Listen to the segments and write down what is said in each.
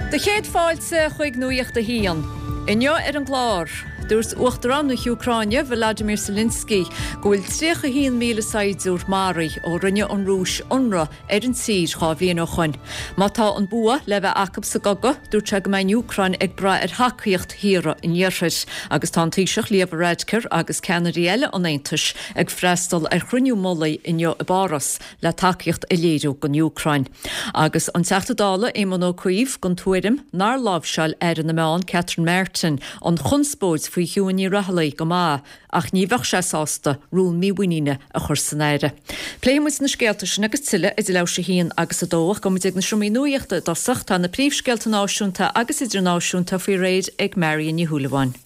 Do chéad fáilte chuig Nuacht a hAon. Inniu ar an gclár, dúirt Uachtarán na hÚcráine, Volodymyr Zelensky, go bhfuil 31,000 saighdiúir maraithe ó rinne an Rúis ionradh ar an tír 2 bhliain ó shoin. Má tá an bua le bheith acu sa gcogadh, dúirt sé go mbeidh an Úcráin ag brath ar thacaíocht thíortha an Iarthair. Agus tá an Taoiseach Leo Varadkar agus ceannairí eile an Aontais ag freastal ar chruinniú mullaigh inniu i bPáras le tacaíocht a léiriú don Úcráin. Agus an Teachta Dála Éamon Ó Cuív den tuairim nár láimhseáil Aire na Meán Catherine Martin an chonspóid faoi Shiún Ní Raghallaigh go maith ach ní bheadh sé sásta rún mímhuiníne a chur san Aire. Pléifidh muid na scéalta sin agus tuilleadh idir leathuair tar éis a haon agus a dó ach gabhfaidh muid ag na seomraí nuachta i dtosach. Tá na príomhscéalta náisiúnta agus idirnáisiúnta faoi réir ag Marion Ní Shúilleabháin.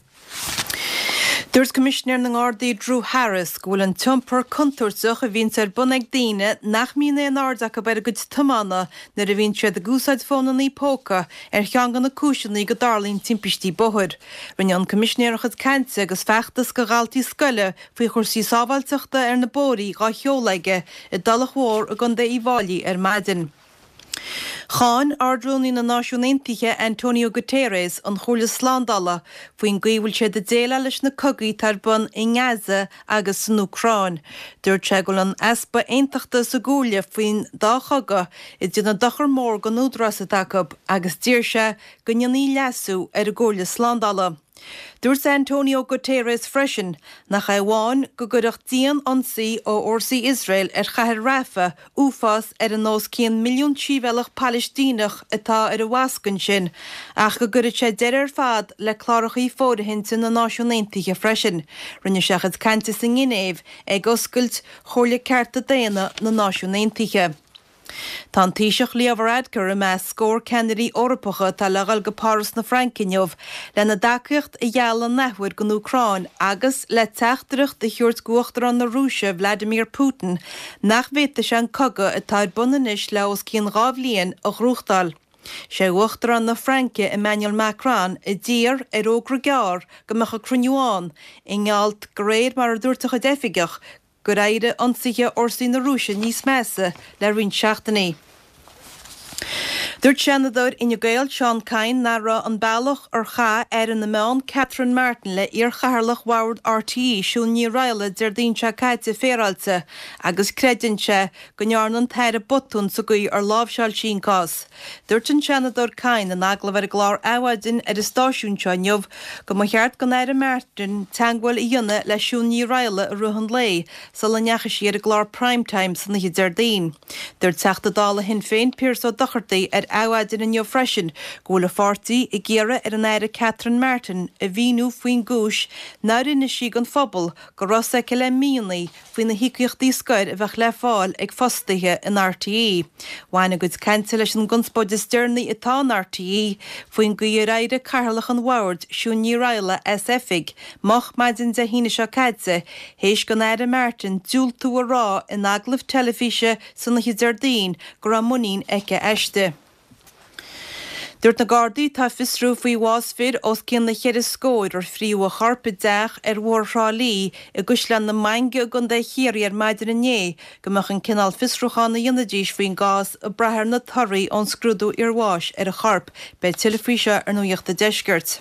Dúirt Coimisinéir na nGardaí Drew Harris go bhfuil an t-iompar contúirteach a bhíonns ar bun ag daoine nach mbíonn aon aird acu ar a gcuid tiomána nuair a bhíonn siad ag úsáid fónannaí póca ar cheann de na cúiseanna go dtarlaíonn timpistí bóthair. Rinne an Coimisinéir a chuid cainte agus feachtas do dhaltaí scoile faoi chúrsaí sábháilteachta ar na bóithrí dhá sheoladh aige i dTulach Mhór i gContae Uíbh Fháilí ar maidin. Cháin Ard-Rúnaí na Náisiún Aontaithe Antonio Guterres an Chomhairle Slándála faoin gcaoi a bhfuil siad ag déileáil leis na cogaí atá ar bun i nGaza agus san Úcráin. Dúirt sé go bhfuil an easpa aontachta sa gComhairle faoin dá chogadh ag déanamh dochar mór don údarás atá acu agus d'iarr sé go ndéanfaí leasú ar an gComhairle Slándála. Dúirt Antonio Guterres freisin nach é amháin go gcuirfeadh dian-ionsaí ó fhórsaí Iosrael ar chathair Rafah uafás ar an os cionn milliún sibhialtach Palaistíneach atá ar an bhasc ansin ach go gcuirfeadh sé deireadh ar fad le clárachaí fóirithinte na Náisiún Aontaithe freisin. Rinne sé a chuid cainte sa nGinéiv ag oscailt Chomhairle Cearta Daonna na Náisiún Aontaithe. Tá an Taoiseach Leo Varadkar i measc scór ceannairí Eorpacha atá le dhul go Páras na Fraince inniu lena dtacaíocht a ghealladh an athuair don Úcráin agus le teachtaireacht a thabhairt d'Uachtarán na Rúise Vladimir Putin nach bhféadfaidh sé an cogadh atá ar bun anois le os cionn 2 bhliain a ghnóthachtáil. Sé Uachtarán na Fraince Emmanuel Macron a d'iarr ar fhógra gearr go mbeadh an cruinniú ann i ngeall de réir mar a dúirt a chuid oifigeach gur éirigh ionsaithe fhórsaí na Rúise níos measa le roinnt seachtainí. Dúirt Seanadóir Fhine Gael Seán Kyne nach raibh an bealach ar chaith Aire na Meán Catherine Martin le iarchathaoirleach Bhord RTÉ Siún Ní Raghallaigh Déardaoin seo caite féaráilte agus creideann sé go ndearna an tAire botún sa gcaoi ar láimhseáil sí an cás. Dúirt an Seanadóir Kyne in agallamh ar an gclár Adhmhaidin ar an stáisiún seo inniu go mba cheart don Aire Martin teagmháil a dhéanamh le Siún Ní Raghallaigh i rith an lae sula ndeachaigh sí ar an gclár Prime Time san oíche Déardaoin. Dúirt Teachta Dála Shinn Féin Pearse Ó Dochartaigh ar Adhmhaidin inniu freisin go bhfuil a pháirtí ag iarraidh ar an Aire Catherine Martin a mhíniú faoin gcúis nár inis sí don phobal go raibh a fhios aici le míonna faoi na híocaíochtaí scoir a bheadh le fáil ag fostaithe in RTÉ. Bhain a gcuid cainte leis an gconspóid is deireanaí atá in RTÉ faoin gcaoi ar éirigh Cathaoirleach an Bhoird, Siún Ní Raghallaigh, as oifig moch maidin Dé hAoine seo caite théis don Aire Martin diúltú a rá in agallamh teilifíse san oíche Déardaoin go raibh muinín aici aisti. Dúirt na Gardaí atá ag fiosrú faoi bhás fir os cionn na cheithre scóir ar fríodh a chorp i dteach ar Bhóthar Thrá Lí i gCaisleán na Mainge i gContae Chiarraí ar maidin inné go mbeadh an cineál fiosrúcháin a dhéanfaidís faoin gcás ag brath ar na torthaí ón scrúdú iarbháis ar an chorp. Beidh tuilleadh faoi seo ar Nuacht an Deiscirt.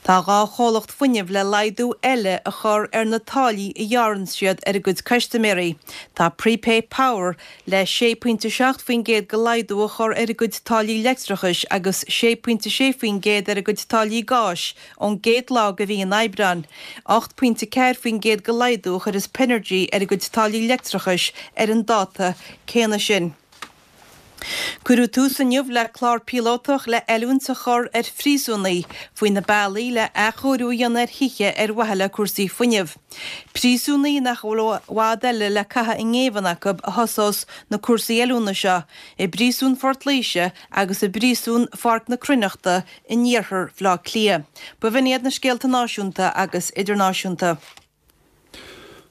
Tá 2 chomhlacht fuinnimh le laghdú eile a chur ar na táillí a ghearrann siad ar a gcuid custaiméirí. Tá Prepay Power le 6.7% de laghdú a chur ar a gcuid táillí leictreachais agus 6.6% ar a gcuid táillí gáis ón gcéad lá de mhí an Aibreáin. 8.4% de laghdú a chuirfeas Pinergy ar a gcuid táillí leictreachais ar an dáta céanna sin. Cuireadh tús inniu le clár píolótach le oiliúint a chur ar phríosúnaigh faoi na bealaí le athchóiriú a dhéanamh ar thithe ar mhaithe le cúrsaí fuinnimh. Príosúnaigh nach bhfuil i bhfad eile le caitheamh i ngéibheann acu a thosós na cúrsaí oiliúna seo i bPríosún Phort Laoise agus i bPríosún Pháirc na Cruithneachta in iarthar Bhaile Átha Cliath. B'in iad na scéalta náisiúnta agus idirnáisiúnta.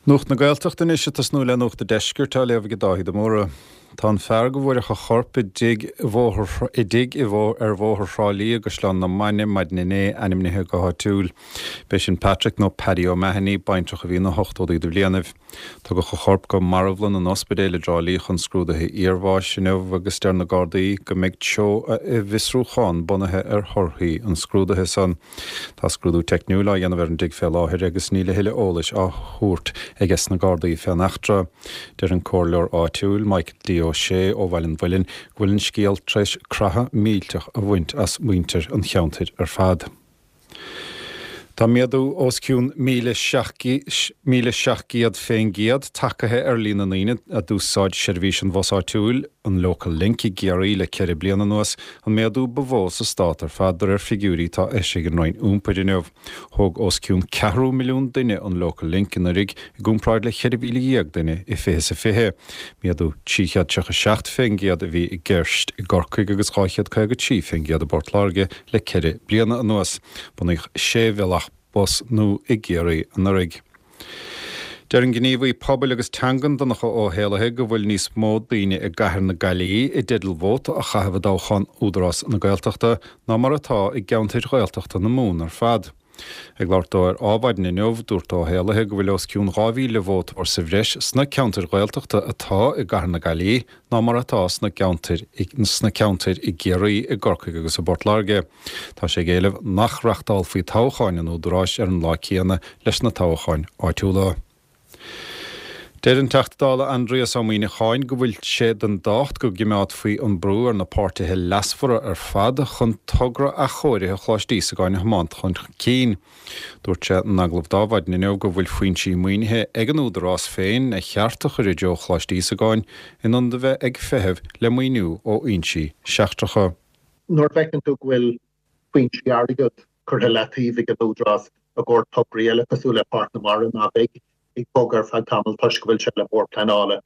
Nuacht na Gaeltachta anois ag tosnú le Nuacht an Deiscirt á léamh ag Dáithí de Mórdha. Tá an fear go bhfuaireadh a chorp i dtigh i dtigh i ar Bhóthar Thrá Lí i gCaisleán na Mainge maidin inné ainmnithe go háitiúil. B'é sin Patrick nó Paddy O'Mahony, baintreach a bhí ina ochtóidí de bhlianaibh. Tugadh a chorp go marbhlann an ospidéil i dTrá Lí chun scrúduithe iarbháis inniu agus deir na Gardaí go mbeidh treo a bhfiosrúchán bunaithe ar thorthaí an scrúdaithe san. Tá scrúdú teicniúil á dhéanamh ar an dtigh fé láthair agus níl a thuilleadh eolais á thabhairt aige sna Gardaí fén eachtra. Deir an comhairleoir áitiúil, Michael D. Ó Sé ó Bhaile an Mhuilinn, go bhfuil an scéal tar éis creathadh millteach a bhaint as muintir an cheantair ar fad. Tá méadú os cionn 1,700 fén gcéad tagaithe ar líon na ndaoine a d'úsáid seirbhís an bhus áitiúil, an Local Link, i gCiarraí le 4 bliana anuas, an méadú ba mhó sa stát ar fad, de réir figiúirí atá eisithe ag an Roinn Iompair inniu. Thóg os cionn ceathrú milliún duine an Local Link anuraidh, i gcomparáid le 14,000 duine i 2020. Méadú 337 fén gcéad a bhí i gceist i gCorcaigh agus 253 fén gcéad i bPort Láirge. Le 4 bliana anuas, bunaíodh 6 bhealach bus nua i gCiarraí anuraidh. Deir an gníomhaí pobail agus teangan Donncha Ó hÉallaithe go bhfuil níos mó daoine i gcathair na Gaillimhe i dteideal vóta a chaitheamh i dtoghchán Údarás na Gaeltachta ná mar atá i gceantair Ghaeltachta na Mumhan ar fad. Ag labhairt dó ar Adhmhaidin inniu, dúirt Ó hÉallaithe go bhfuil os cionn 2,000 vótóir sa bhreis sna ceantair Ghaeltachta atá i gcathair na Gaillimhe ná mar atá sna ceantair sna ceantair i gCiarraí, i gCorcaigh agus i bPort Láirge. Tá sé ag éileamh nach reachtálfaí toghcháin an Údaráis ar an lá céanna leis na toghcháin áitiúla. Deir an Teachta Dála Aindrias Ó Muíneacháin go bhfuil sé den dácht go gcimeádfaí an brú ar na páirtithe leasmhara ar fad chun togra athchóirithe Choláiste Íosagáin a thiomáint chun cinn. Dúirt sé in agallamh d'Adhmhaidin inniu go bhfuil foinsí maoinithe ag an Údarás féin a cheart a chur i dtreo Choláiste Íosagáin in ionad a bheith ag feitheamh le maoiniú ó fhoinsí seachtracha. Nuair a fheiceann tú go bhfuil foinsí airgid curtha i leataobh ag an Údarás i gcomhair tograí eile cosúil le Páirc na Mara ná beidh ag bogadh ar feadh tamaill toisc go bhfuil sé le Bord Pleanála.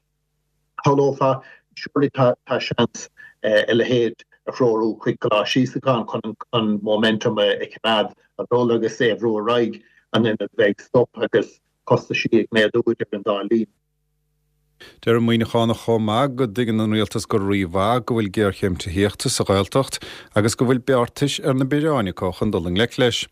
Shamhlófá, surely tá seans a leithéid a threorú chuig Coláiste Íosagáin chun an momentum a choimeád ag dul agus é a bhrú ar aghaidh in ionad bheith ag stop agus costaisí ag méadú idir an dá linn. Deir an Muíneachánach chomh maith go dtuigeann an rialtas go rímhaith go bhfuil géarchéim tithíochta sa Ghaeltacht agus go bhfuil beartais ar na bioráin acu chun dul i ngleic leis.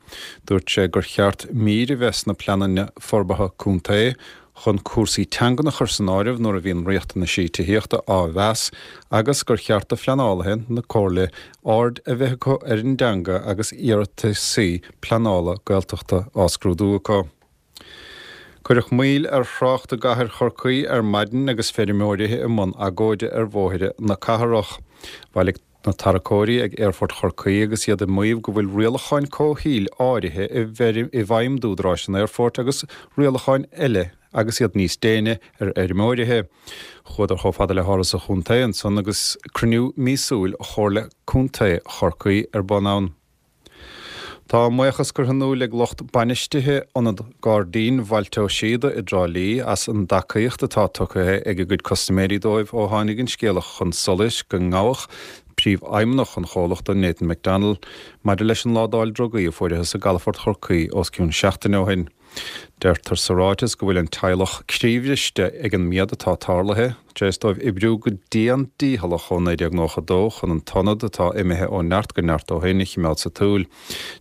Dúirt sé gur cheart mír a bheith sna pleananna forbartha contae chun cúrsaí teangan a chur san áireamh nuair a bhíonn riachtanaisí tithíochta á mheas agus gur cheart do phleanálaithe na comhairle aird a bheith acu ar an dteanga agus iarrataisí pleanála Gaeltachta á scrúdú acu. Cuireadh moill ar thrácht i gcathair Chorcaí ar maidin agus feirmeoirí i mbun agóide ar bhóithre na cathrach. Bhailigh na tarracóirí ag Aerfort Chorcaí agus iad ag maíomh go bhfuil rialacháin comhshaoil áirithe i bhfeidhm d'údaráis an aerfoirt agus rialacháin eile agus iad níos déine ar fheirmeoirithe. Chuadar chomh fada le hÁras an Chontae ansan agus cruinniú míosúil Chomhairle Contae Chorcaí ar bun ann. Tá a mbuíochas curtha in iúl ag lucht bainistithe Ionad Gairdín Bhailte Ó Síoda i dTrá Lí as an dtacaíocht atá tugtha ag a gcuid custaiméirí dóibh ó tháinig an scéala chun solais go ngabhadh príomhfheidhmeannach an chomhlachta, Nathan McDonnell, maidir leis an ládáil drugaí a fuaireathas i gcalafort Chorcaí os cionn seachtaine ó shin. Deirtear sa ráiteas go bhfuil an teaghlach croíbhriste ag an méad atá tarlaithe, tar éis dóibh oibriú go dian dícheallach ó 1992 chun an t-ionad, atá imithe ó neart go neart ó shin, a chimeád sa tsiúl.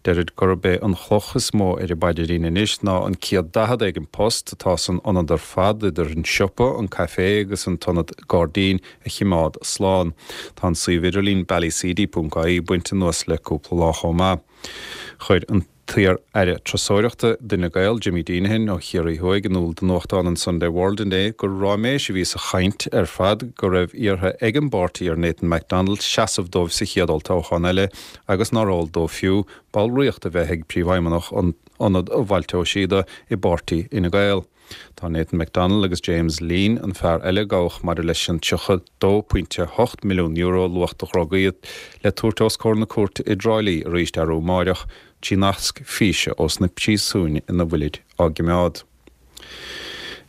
Deirid gurb é an chloch is mó ar a bpaidrín anois ná an 140 éigin post atá san ionad ar fad, idir an siopa, an caifé agus an t-ionad gairdín, a chimeád slán. Tá an suíomh idirlín ballyseedy.ie bainte anuas le cúpla lá chomh maith. Chuir an t-iar-aire turasóireachta d'Fhine Gael, Jimmy Deenihan ó Chiarraí Thuaidh, in iúl do nuachtán an Sunday World inné gur ráiméis a bhí sa chaint ar fad go raibh iarrtha ag an bpáirtí ar Nathan McDonnell seasamh dóibh sa chéad olltoghchán eile agus nár eol dó fiú ballraíocht a bheith ag príomhfheidhmeannach Ionad Bhailte Ó Síoda i bpáirtí Fhine Gael. Tá Nathan McDonnell agus James Leen, an fear eile a gabhadh maidir leis an €32.8 milliún luach de dhrugaí, le tabhairt os comhair na cúirte i dTrá Lí arís arú amáireach trí nasc físe ós na príosúin ina bhfuilid á gcimeád.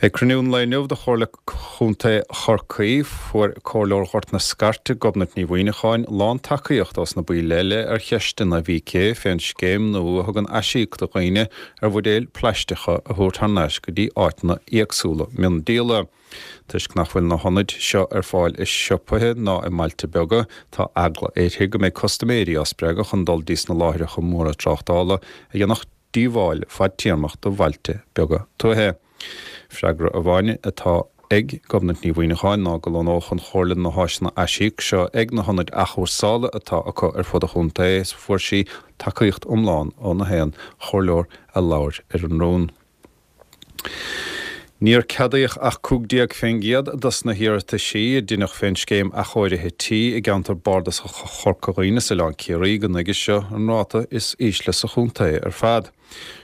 Ag cruinniú an lae inniu de Chomhairle Chontae Chorcaí, fuair Comhairleoir Ghort na Scairte, Gobnait Ní Mhuineacháin, lán-tacaíocht ós na baill eile ar cheisteanna a bhí aici fén scéim nua a thugann aisíoc do dhaoine ar bhuidéil plaisteacha a thabhairt thar n-ais go dtí áiteanna éagsúla miondíola. Toisc nach bhfuil na hionaid seo ar fáil i siopaithe ná i mbailte beaga, tá eagla uirthi go mbeidh custaiméirí á spreagadh chun dul dtí sna láithreacha móra tráchtála a dhéanfadh díobháil fadtéarmach do bhailte beaga tuaithe. Freagra amháin atá ag Gobnait Ní Mhuineacháin ná go lonnódh an Chomhairle na háiseanna aisíoc seo ag na hionaid athchúrsála atá acu ar fud an chontae is fuair sí tacaíocht iomlán ó na haon chomhairleoir a labhair ar an rún. Níor ceadaíodh ach 15% dos na hiarrataisí a deineadh fén scéim athchóirithe tí i gceantar bardasach Chorca Dhuibhne is Oileán Ciarraí go nuige seo, an ráta is ísle sa chontae ar fad.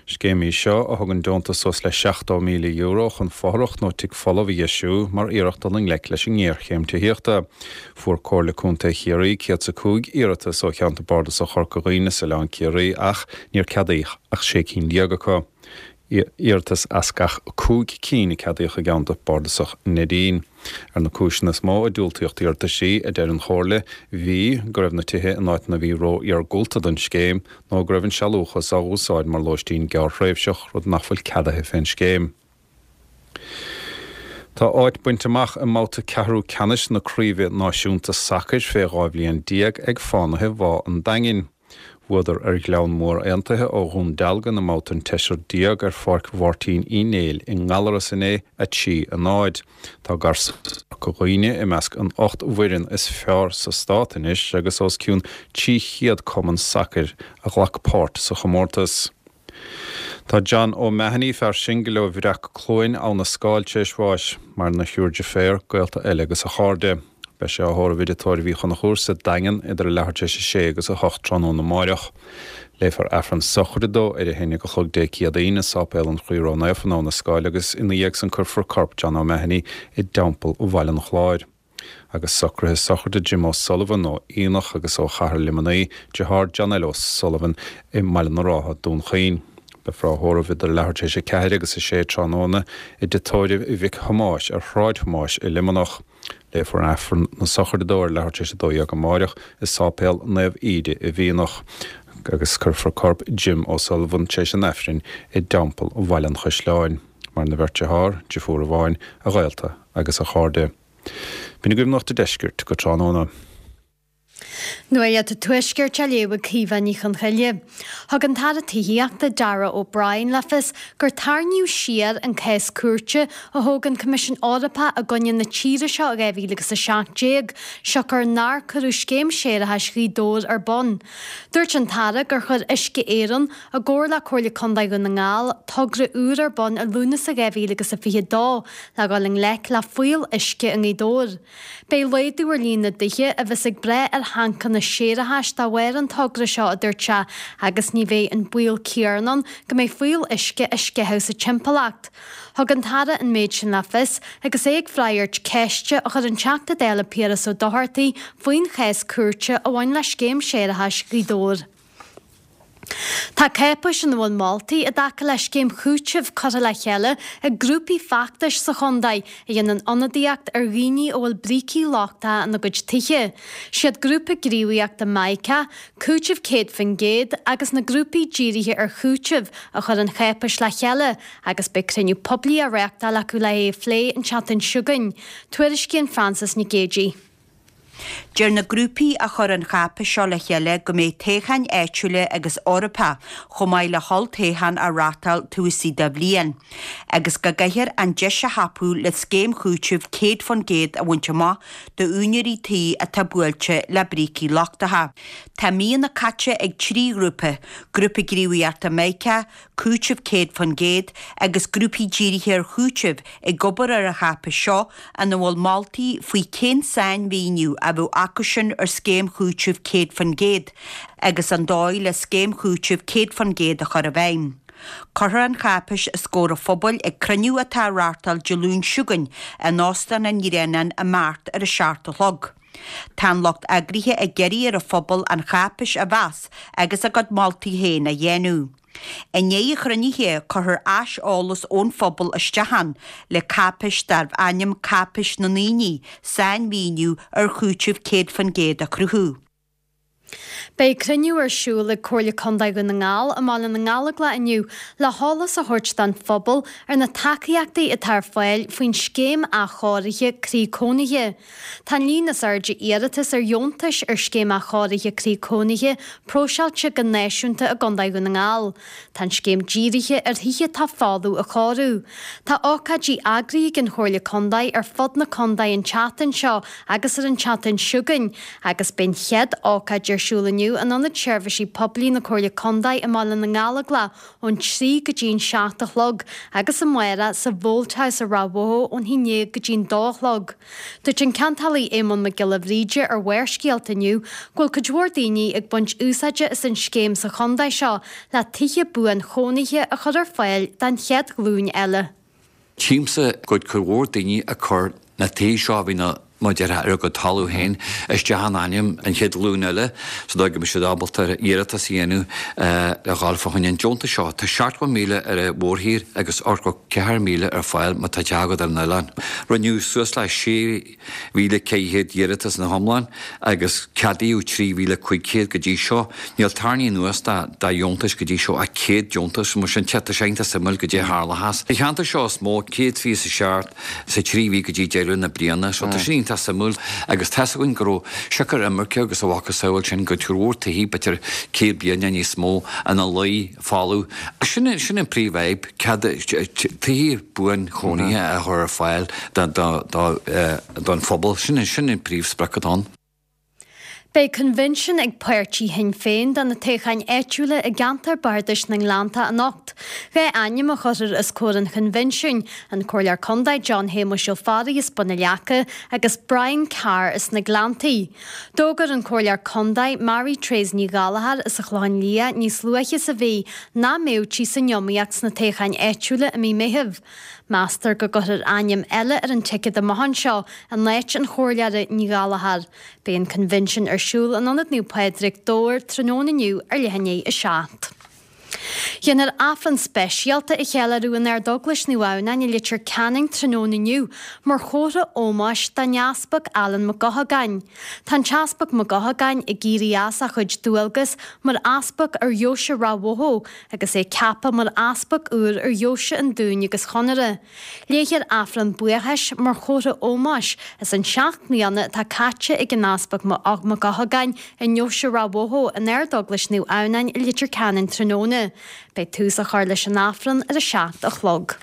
Scéim í seo a thugann deontas suas le €70,000 chun fothrach nó tigh folamh a dheisiú mar iarracht dul i ngleic leis an ngéarchéim tithíochta. Fuair Comhairle Contae Chiarraí 105 iarratas ó cheantar bardasach Chorca Dhuibhne is Oileán Ciarraí ach níor ceadaíodh ach 16 cinn acu. iarratas as gach 5 cinn a ceadaíodh i gceantar bardasach Neidín. Ar na cúiseanna is mó a diúltaíodh d'iarrataisí, a deir an Chomhairle, bhí, go raibh na tithe in áiteanna a bhí ró-iargúlta don scéim, nó go raibh an sealúchas á úsáid mar lóistín gearrthréimhseach, rud nach bhfuil ceadaithe fén scéim. Tá áit bainte amach i mbabhta ceathrú ceannais na Craoibhe Náisiúnta Sacair fé 12 bhliain ag Fánaithe Bhá an Daingin. Bhuadar ar Ghleann Mór Aontaithe ó Dhún Dealgan i mbabhta an tseisir déag ar Pháirc Mháirtín Uí Néill i nGallaras inné, 3, 0. Tá Garsúin Chorca Dhuibhne i measc an 8 bhfoireann is fearr sa stát anois agus os cionn 300 cumann sacair a ghlac páirt sa chomórtas. Tá John O'Mahony, fear singil ó Bhreac Cluain, Abha na Scáil, tar éis bháis. Maireann a thriúr deirféar, gaolta eile agus a chairde. Beidh sé á thórramh i dTigh Tórraimh Uí Chonchúir sa Daingean idir a leathuair tar éis a sé agus a hocht tráthnóna amáireach. Léifear Aifreann sochraide dó ar a haon déag a chlog Dé Céadaoin i Sáipéal an Chroí Ró-Naofa in Abha na Scáil agus ina dhiaidh san cuirfear corp John O'Mahony i dTeampall Bhaile an Chláir. Agus socruithe sochraide Jim O'Sullivan ó Fhíonach agus ó Chathair Luimnigh, deartháir John L. O'Sullivan i mBaile na Rátha, Dún Chaoin. Beifear á thórramh idir leathuair tar éis a ceathair agus a sé tráthnóna i dtigh tórraimh Mhic Thomáis ar Shráid Thomáis i Luimneach. Léifear Aifreann na sochraide dó ar leathuair tar éis a 12 amáireach i Sáipéal Naomh Íde i bhFíonach agus cuirfear corp Jim O'Sullivan tar éis an Aifrinn i dTeampall Bhaile an Chaisleáin. Maireann a bheirt dearthár, deirfiúr amháin, a ghaolta agus a chairde. B'in agaibh Nuacht an Deiscirt go tráthnóna. Nuacht an Tuaiscirt á léamh ag Caoimhe Ní Chonchoille. Thug an tAire Tithíochta, Darragh O'Brien le fios gur tarraingíodh siar an cás cúirte a thóg an Coimisiún Eorpach i gcoinne na tíre seo i 2017, siocair nár cuireadh scéim séarachais Ghaoth Dobhair ar bun. Dúirt an tAire gur chuir Uisce Éireann, i gcomhar le Comhairle Contae Dhún na nGall, togra úr ar bun i Lúnasa 2022 le dhul i ngleic le fuíoll uisce i nGaoth Dobhair. Beidh laghdú ar líon na dtithe a bheas ag brath ar thancanna séarachais dá bharr an togra seo, a dúirt sé, agus ní bheidh an baol céanna ann go mbeidh fuíoll uisce á sceitheadh sa timpeallacht. Thug an tAire an méid sin le fios agus é ag freagairt ceiste a chuir an Teachta Dála Piaras Ó Dochartaigh faoin chás cúirte a bhain le scéim séarachais Ghaoth Dobhair. Tá cáipéis ina bhfuil moltaí i dtaca le scéim chúitimh curtha le chéile ag grúpaí feachtais sa chontae a dhéanann ionadaíocht ar dhaoine a bhfuil brící lochtacha ina gcuid tithe. Siad grúpa gníomhaíochta Mica, Cúiteamh 100% agus na grúpaí dírithe ar chúiteamh a chuir an cháipéis le chéile agus beidh cruinniú poiblí á reáchtáil acu le é a phlé an tseachtain seo chugainn. Tuairiscíonn Frances Nic Géadaigh. Deir na grúpaí a chuir an cháipéis seo le chéile go mbeidh toghcháin áitiúla agus Eorpacha chomh maith le holltoghchán á reáchtáil taobh istigh de bhliain, agus go gcaithfear an deis a thapú le scéim chúitimh 100% a bhaint amach d'úinéirí tí atá buailte le brící lochtacha. Tá míonna caite ag 3 ghrúpa, Grúpa Gníomhaíochta Mica, Cúiteamh 100% agus grúpaí dírithe ar chúiteamh ag obair ar an cháipéis seo ina bhfuil moltaí faoi cén sainmhíniú a bheadh acusin ar scéim chúitimh 100% agus an dóigh le scéim chúitimh 100% a chur i bhfeidhm. Cuirfear an cháipéis os comhair an phobail ag cruinniú atá á reáchtáil Dé Luain seo chugainn in Óstán an Ghreanáin i mBeart ar a 7 a chlog. Tá an lucht eagraithe ag iarraidh ar an phobal an cháipéis a mheas agus a gcuid moltaí féin a dhéanamh. I ndiaidh an chruinnithe, cuirfear aiseolas ón phobal isteach ann le cáipéis darbh ainm Cáipéis na nDaoine, sainmhíniú ar chúiteamh 100% a chruthú. Beidh cruinniú ar siúl ag Comhairle Contae Dhún na nGall i mBaile na nGallóglach inniu le heolas a thabhairt don phobal ar na tacaíochtaí atá ar fáil faoin Scéim Athchóirithe Croí Cónaithe. Tá an líon is airde iarratas ar dheontais ar Scéim Athchóirithe Croí Cónaithe próiseáilte go náisiúnta i gContae Dhún na nGall. Tá an scéim dírithe ar thithe atá folamh a chóiriú. Tá ócáidí eagraithe ag an Chomhairle Contae ar fud na contae an tseachtain seo agus ar an tseachtain seo chugainn agus beidh an chéad ócáid ar siúl inniu in Ionad Seirbhísí Poiblí na Comhairle Contae i mBaile na nGallóglach ón 3 go dtí an 7 a chlog agus amárach sa Bholt House i Ráth Bhoth ón 11 go dtí an 2 a chlog. Dúirt an Ceantálaí Éamonn Mac Giolla Bhríde ar Bharrscéalta inniu go bhfuil cuid mhór daoine ag baint úsáide as an scéim sa chontae seo le tithe buanchónaithe a chur ar fáil don chéad ghlúin eile. Tchímse go bhfuil cuid mhór daoine ag cur na tithe seo a bhí na, mar a déarfá, ar a gcuid talamh féin isteach in ainm an chéad ghlúin eile sa dóigh go mbeidh siad ábalta iarratas a dhéanamh le dhul fá choinne an deontais seo. Tá 70,000 ar an mhórthír agus 84,000 ar fáil má tá teach agat ar an oileán. Rinneadh suas le 6,400 iarratas ina hiomlán agus ceadaíodh 3,500 go dtí seo. Níl tarraingthe anuas de dheontais go dtí seo ach 100 deontas, mar sin tá sé iontach suimiúil goidé a tharlóchas. Sa cheantar seo is mó, 127 sa trí mhí go dtí deireadh na bliana, so tá sin iontach suimiúil agus tá's againn go raibh siocair imirce agus a mhacasamhail sin go cuid mhór tithe b'fhéidir 100 bliain nó níos mó ina luí folamh. Sin sin an príomhfhadhb, cead tithe buanchónaithe a chur ar fáil don phobal, sin sin an príomhsprioc atá ann. Beidh coinbhinsiún ag páirtí Shinn Féin do na toghcháin áitiúla i gceantar Bardais na nGleannta anocht. Dhá ainm a chuirfear os comhair an choinbhinsiúin, an Comhairleoir Contae John Shéamuis Ó Fearraigh as Bun an Leaca agus Brian Carr as na Gleanntaí. D'fhógair an Comhairleoir Contae Mary Therese Ní Ghallchóir as an Chlochán Liath níos luaithe sa mhí nach mbeadh sí san iomaíocht sna toghcháin áitiúla i mí Meithimh. Meastar go gcuirfear ainm eile ar an ticéad amach anseo in áit an Chomhairleora Ní Ghallchóir. Beidh an coinbhinsiún ar siúl in Ionad Naomh Pádraig, Dobhar, tráthnóna inniu ar leath i ndiaidh 7. Déanfar Aifreann speisialta a cheiliúradh in Ardeaglais Naomh Adhamhnáin i Leitir Ceanainn tráthnóna inniu mar chomhartha ómóis don Easpag Alan Mac Eochagáin. Tá an tEaspag Mac Eochagáin ag éirí as a chuid dualgas mar Easpag ar Dheoise Ráth Bhoth agus é ceaptha mar Easpag úr ar Dheoise an Dúin agus Chonaire. Léifear Aifreann buíochais mar chomhartha ómóis as an seacht mbliana atá caite ag an Easpag Mac Eochagáin i nDeoise Ráth Bhoth in Ardeaglais Naomh Adhamhnáin i Leitir Ceanainn tráthnóna. Beidh tús á chur leis an Aifreann ar a 7 a chlog.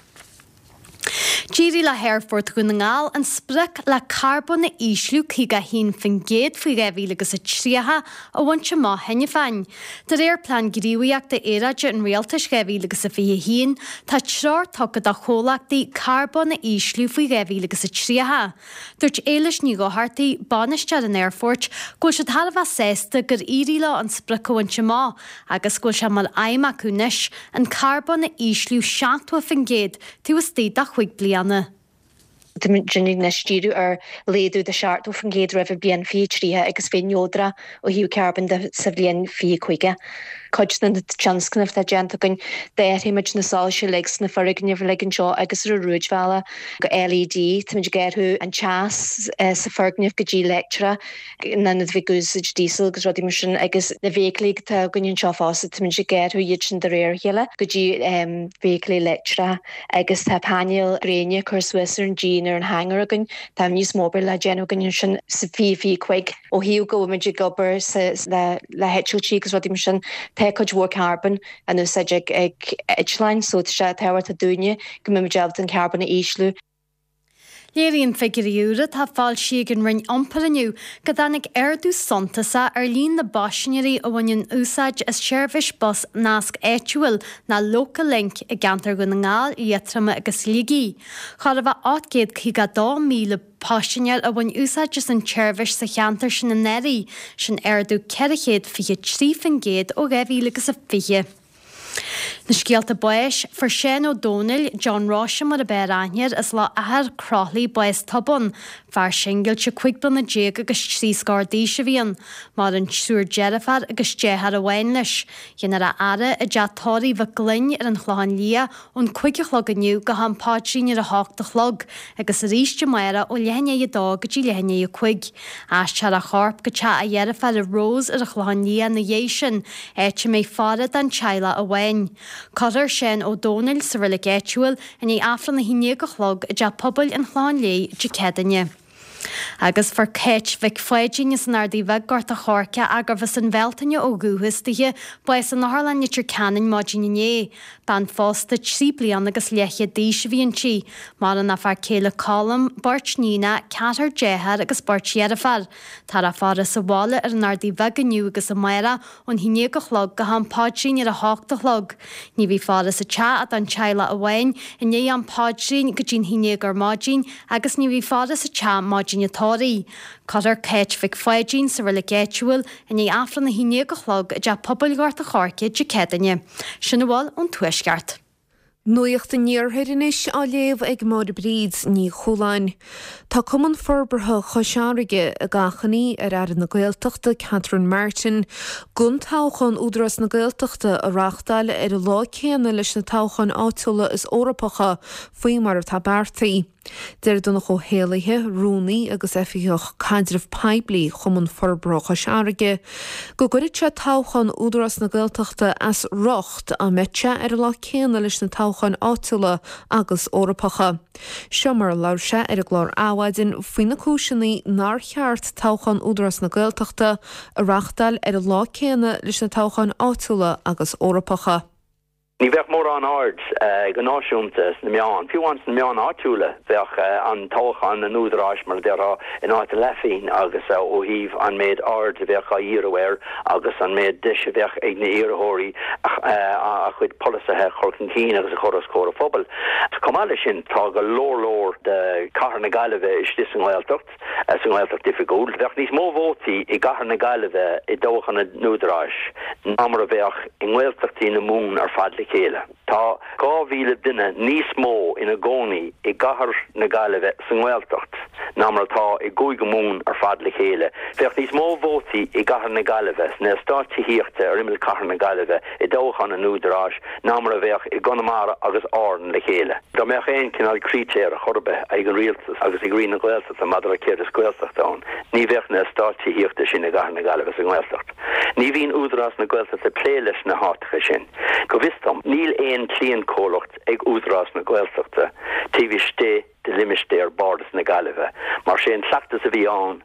D'éirigh le hAerfort Dhún na nGall an sprioc le carbón a ísliú 51% faoi 2030 a bhaint amach cheana féin. De réir Plean Gníomhaíochta Aeráide an Rialtais 2021, tá treoir tugtha do chomhlachtaí carbón a ísliú faoi 2030. Dúirt Éilis Ní Dhochartaigh, bainisteoir an aerfoirt, go bhfuil siad thar a bheith sásta gur éirigh leo an sprioc a bhaint amach agus go bhfuil sé mar aidhm acu anois an carbón a ísliú 70% taobh istigh de chúig bliana. Táimid anois ag díriú ar laghdú de 70% roimh an bhliain 2030 agus bheith neodrach ó thaobh carbóin de sa bhliain 2050. Cuid de na tionscnaimh atá déanta againn, d'athraigh muid na soilse uilig sna foirgnimh uilig anseo agus ar an rúidbhealach go LED. Táimid ag athrú an teas sa foirgneamh go dtí leictreach in ionad bheith ag úsáid diesel agus rudaí mar sin agus na feithiclí atá againn anseo fosta, táimid ag athrú iad sin de réir a chéile go dtí feithiclí leictreacha. Agus tá painéil gréine curtha suas ar an díon ar an hangar againn. Tá níos mó obair le déanamh againn ansin sa 2025. Ó thaobh go bhfuil muid ag obair le heitiltí agus rudaí mar sin, tá cuid mhór carbón in úsáid ag eitleáin so tá sé tábhachtach dúinne go mbeidh muid ábalta an carbón a ísliú. Léiríonn figiúirí úra atá foilsithe ag an Roinn Iompair inniu go dtáinig ardú suntasach ar líon na bpaisinéirí a bhaineann úsáid as seirbhís bus Nasc Áitiúil nó Local Link i gceantar Dhún na nGall, Liatroma agus Shligigh. Chóir a bheith 852,000 paisinéir a bhain úsáid as an tseirbhís sa cheantar sin anuraidh, sin ardú 423% ó 2020. Na scéalta báis, Fuair Seán Ó Domhnaill, John Róise mar ab fhearr aithne air, as Loch Eachar, Croithlí, bás tobann. Fear singilte 15 bliana agus 3 scór d'aois a bhí ann. Maireann triúr deirféar agus deartháir amháin leis. Déanfar a fhaire i dteach tórraimh Mhic Gloinn ar an Chlochán Liath ón 5 a chlog inniu go ham paidrín ar a hocht a chlog agus arís amárach ó leath i ndiaidh a dó go dtí leath i ndiaidh a cúig. Aistreofar a chorp go teach a dheirféar Rose ar an Chlochán Liath ina dhiaidh sin, áit a mbeidh faire don teaghlach amháin. Cuirfear Seán Ó Domhnaill sa reilig áitiúil i ndiaidh Aifreann a haon déag a chlog i dTeach Pobail an Chlocháin Léith Dé Céadaoine. Agus fuair Cáit Mhic Pháidín as an Ardaidh Bheag, Gort a' Choirce, ach gurbh as an Bhealtaine ó dhúchas dithe, bás in Otharlann Leitir Ceanainn maidin inné. Bean phósta 3 bliana agus leathchéad d'aois a bhí inti. Maireann a fear céile Colm, beirt níonacha, ceathrar dearthár agus beirt dheirféar. Táthar á faire sa bhaile ar an Ardaidh Bheag inniu agus amárach ón 11 a chlog go ham paidrín ar a hocht a chlog. Ní bheidh faire sa teach ach don teaghlach amháin i ndiaidh am paidrín go dtí'n 11 ar maidin agus ní bheidh faire sa teach maidin an tórraimh. Cuirfear Cáit Mhic Pháidín sa reilig áitiúil i ndiaidh Aifreann a 11 a chlog i dTeach Pobail Ghort a' Choirce Dé Céadaoine. Sin a bhfuil ón Tuaisceart. Nuacht an Iarthair anois á léamh ag Máire Bríd Ní Chualáin. Tá Cumann Forbartha Chois Fharraige ag achainí ar Aire na Gaeltachta Catherine Martin gan toghchán Údarás na Gaeltachta a reáchtáil ar an lá céanna leis na toghcháin áitiúla is Eorpacha faoi mar atá beartaithe. Deir Donncha Ó hÉallaithe, Rúnaí agus Oifigeach Caidreamh Poiblí Chumann Forbartha Chois Fharraige, go gcuirfeadh sé toghchán Údarás na Gaeltachta as riocht dá mbeadh sé ar an lá céanna leis na toghcháin áitiúla agus Eorpacha. Seo mar a labhair sé ar an gclár Adhmhaidin faoi na cúiseanna nár cheart toghchán Údarás na Gaeltachta a reáchtáil ar an lá céanna leis na toghcháin áitiúla agus Eorpacha. Ní bheadh mórán aird go náisiúnta sna meáin, fiú amháin sna meáin áitiúla, bheadh an toghchán an Údaráis, mar a déarfá, in áit a leathphingin agus ó thaobh an méid aird a bheadh á dhíriú air agus an méid deis a bheadh ag na iarrthóirí a chuid polasaithe a chur chun cinn agus a chur os comhair an phobail. Chomh maith leis sin, tá go leor leor de chathair na Gaillimhe istigh sa nGaeltacht. sa nGaeltacht Oifigiúil. Bheadh níos mó vótaí i gcathair na Gaillimhe i dtoghchán an Údaráis ná mar a bheadh i nGaeltachtaí na Mumhan ar fad le chéile. Tá 2,000 duine níos mó ina gcónaí i gcathair na Gaillimhe sa nGaeltacht ná mar atá i gCúige Mumhan ar fad le chéile. Bheadh níos mó vótaí i gcathair na Gaillimhe, sna eastáit tithíochta ar imeall chathair na Gaillimhe i dtoghchán an Údaráis ná mar a bheadh i gConamara agus Árainn le chéile. Dá mbeadh aon chineál critéir ar chor ar bith ag an Rialtas agus ag Roinn na Gaeltachta maidir le céard is Gaeltacht ann, ní bheadh na eastáit tithíochta sin i gcathair na Gaillimhe sa nGaeltacht. Ní bhíonn Údarás na Gaeltachta ag plé leis na háiteacha sin. Go bhfios dom, níl aon cliantchomhlacht ag Údarás na Gaeltachta taobh istigh de limistéar Bhardas na Gaillimhe, mar sé an cleachtas a bhí ann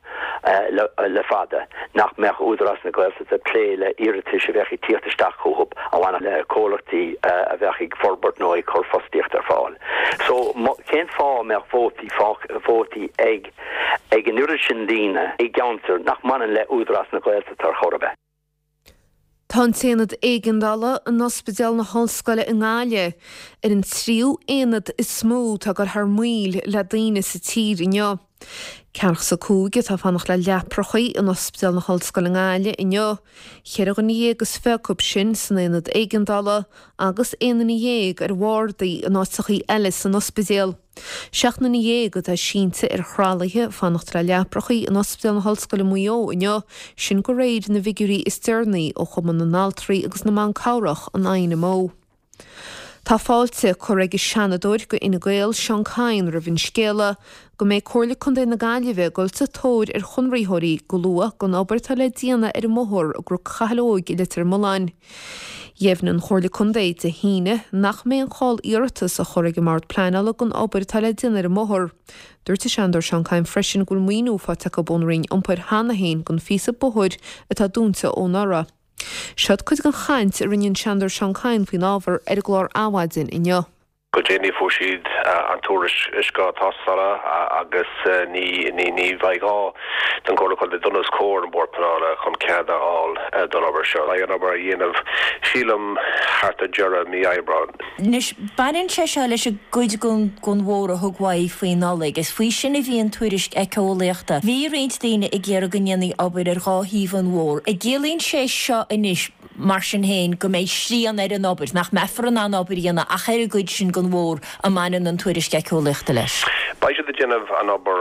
le fada nach mbeadh Údarás na Gaeltachta ag plé le iarratais a bheadh ag tíocht isteach chucu a bhainfeadh le comhlachtaí a bheadh ag forbairt nó ag cur fostaíocht ar fáil. So, cén fáth a mbeadh vótaí, vótaí ag ag an oiread sin daoine i gceantar nach mbaineann le Údarás na Gaeltachta ar chor ar bith? Tá an tAonad Éigeandála in Ospidéal na hOllscoile i nGaillimh ar an tríú aonad is mó atá ag dul thar maoil le daoine sa tír inniu. Ceathracha 5 atá ag fanacht le leaprachaí in Ospidéal na hOllscoile i nGaillimh inniu, cheithre dhuine dhéag is fiche acu sin san aonad éigeandála agus aon duine dhéag ar bhardaí in áiteachaí eile san ospidéal. 17 nduine atá sínte ar thralaithe ag fanacht le leaprachaí in Ospidéal na hOllscoile Maigh Eo inniu, sin de réir na bhfigiúirí is deireanaí ó Chumann na nAltraí agus na mBan Cabhrach, an INMO. Tá fáilte curtha ag an Seanadóir do Fhine Gael, Seán Kyne roimh an scéala go mbeidh Comhairle Contae na Gaillimhe ag dul sa tóir ar chonraitheoirí go luath don obair atá le déanamh ar an mbóthar i gCnoc Chathail Óig i Leitir Mealláin. Dheimhnigh an Chomhairle Contae Dé hAoine nach mbeidh aon chall iarratas á chur ag an mBord Pleanála don obair atá le déanamh ar an mbóthar. Dúirt an Seanadóir Seán Kyne freisin go bhfuil maoiniú faighte acu ón Roinn Iompair cheana féin don phíosa bóthair atá dúnta ó anuraidh. Seod cuid den chaint a rinne an Seanadóir Seán Kyne faoin ábhar ar an gclár Adhmhaidin inniu. Go déanaí fuair siad an tuairisc tástála agus ní bheidh gá don Chomhairle Contae dul os comhair an Bhord Pleanála chun cead a fháil don obair seo. Beidh an obair á dhéanamh, sílim, thart ar deireadh mí Aibreáin. Anois, baineann sé seo leis an gcuid den bhóthar a thug uaidh faoi Nollaig. Is faoi sin a bhí an tuairisc éiceolaíochta. Bhí roinnt daoine ag iarraidh go ndéanfaí obair ar dhá thaobh an bhóthair. An gciallaíonn sé seo anois. mar sin féin, go mbeidh srian ar an obair, nach mbeifear in ann obair a dhéanamh ach ar an gcuid sin den bhóthar a mbaineann an tuairisc éiceolaíochta leis. Beidh siad ag déanamh an obair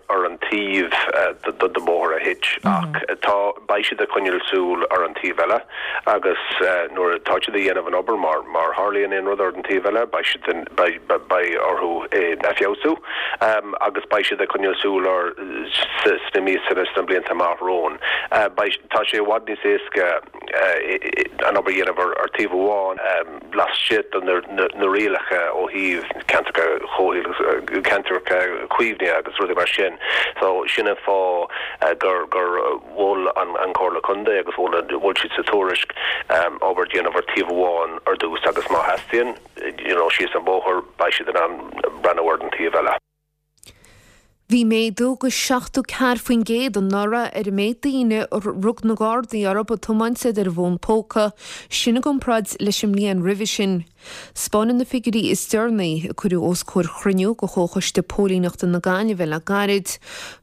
ar an taobh den bhóthar a thit ach tá, beidh siad ag coinneáil súil ar an taobh eile agus nuair atá siad ag dhéanamh an obair, má tharlaíonn aon rud ar an taobh eile, beidh siad, beidh orthu é a feabhsú agus beidh siad ag coinneáil súil air sna míosa sna blianta amach romhainn. Beidh, tá sé i bhfad níos éasca an obair a dhéanamh ar taobh amháin. laistigh de na rialacha ó thaobh ceantracha comhshaoil, ceantracha caomhnaithe agus rudaí mar sin. So sin an fáth gur gur mhol an Chomhairle Contae agus mhol mhol siad sa tuairisc obair a dhéanamh ar taobh amháin ar dtús agus má theastaíonn you know síos an bóthar beidh siad in ann breathnú ar an taobh eile. Bhí méadú go 74% anuraidh ar an méid daoine a rug na Gardaí orthu ag tiomáint is iad ar a bhfón póca, sin i gcomparáid leis an mbliain roimhe sin. 'Spáineann na figiúirí is deireanaí, a cuireadh os comhair chruinniú de Chomhchoiste Póilíneachta na Gaillimhe le gairid,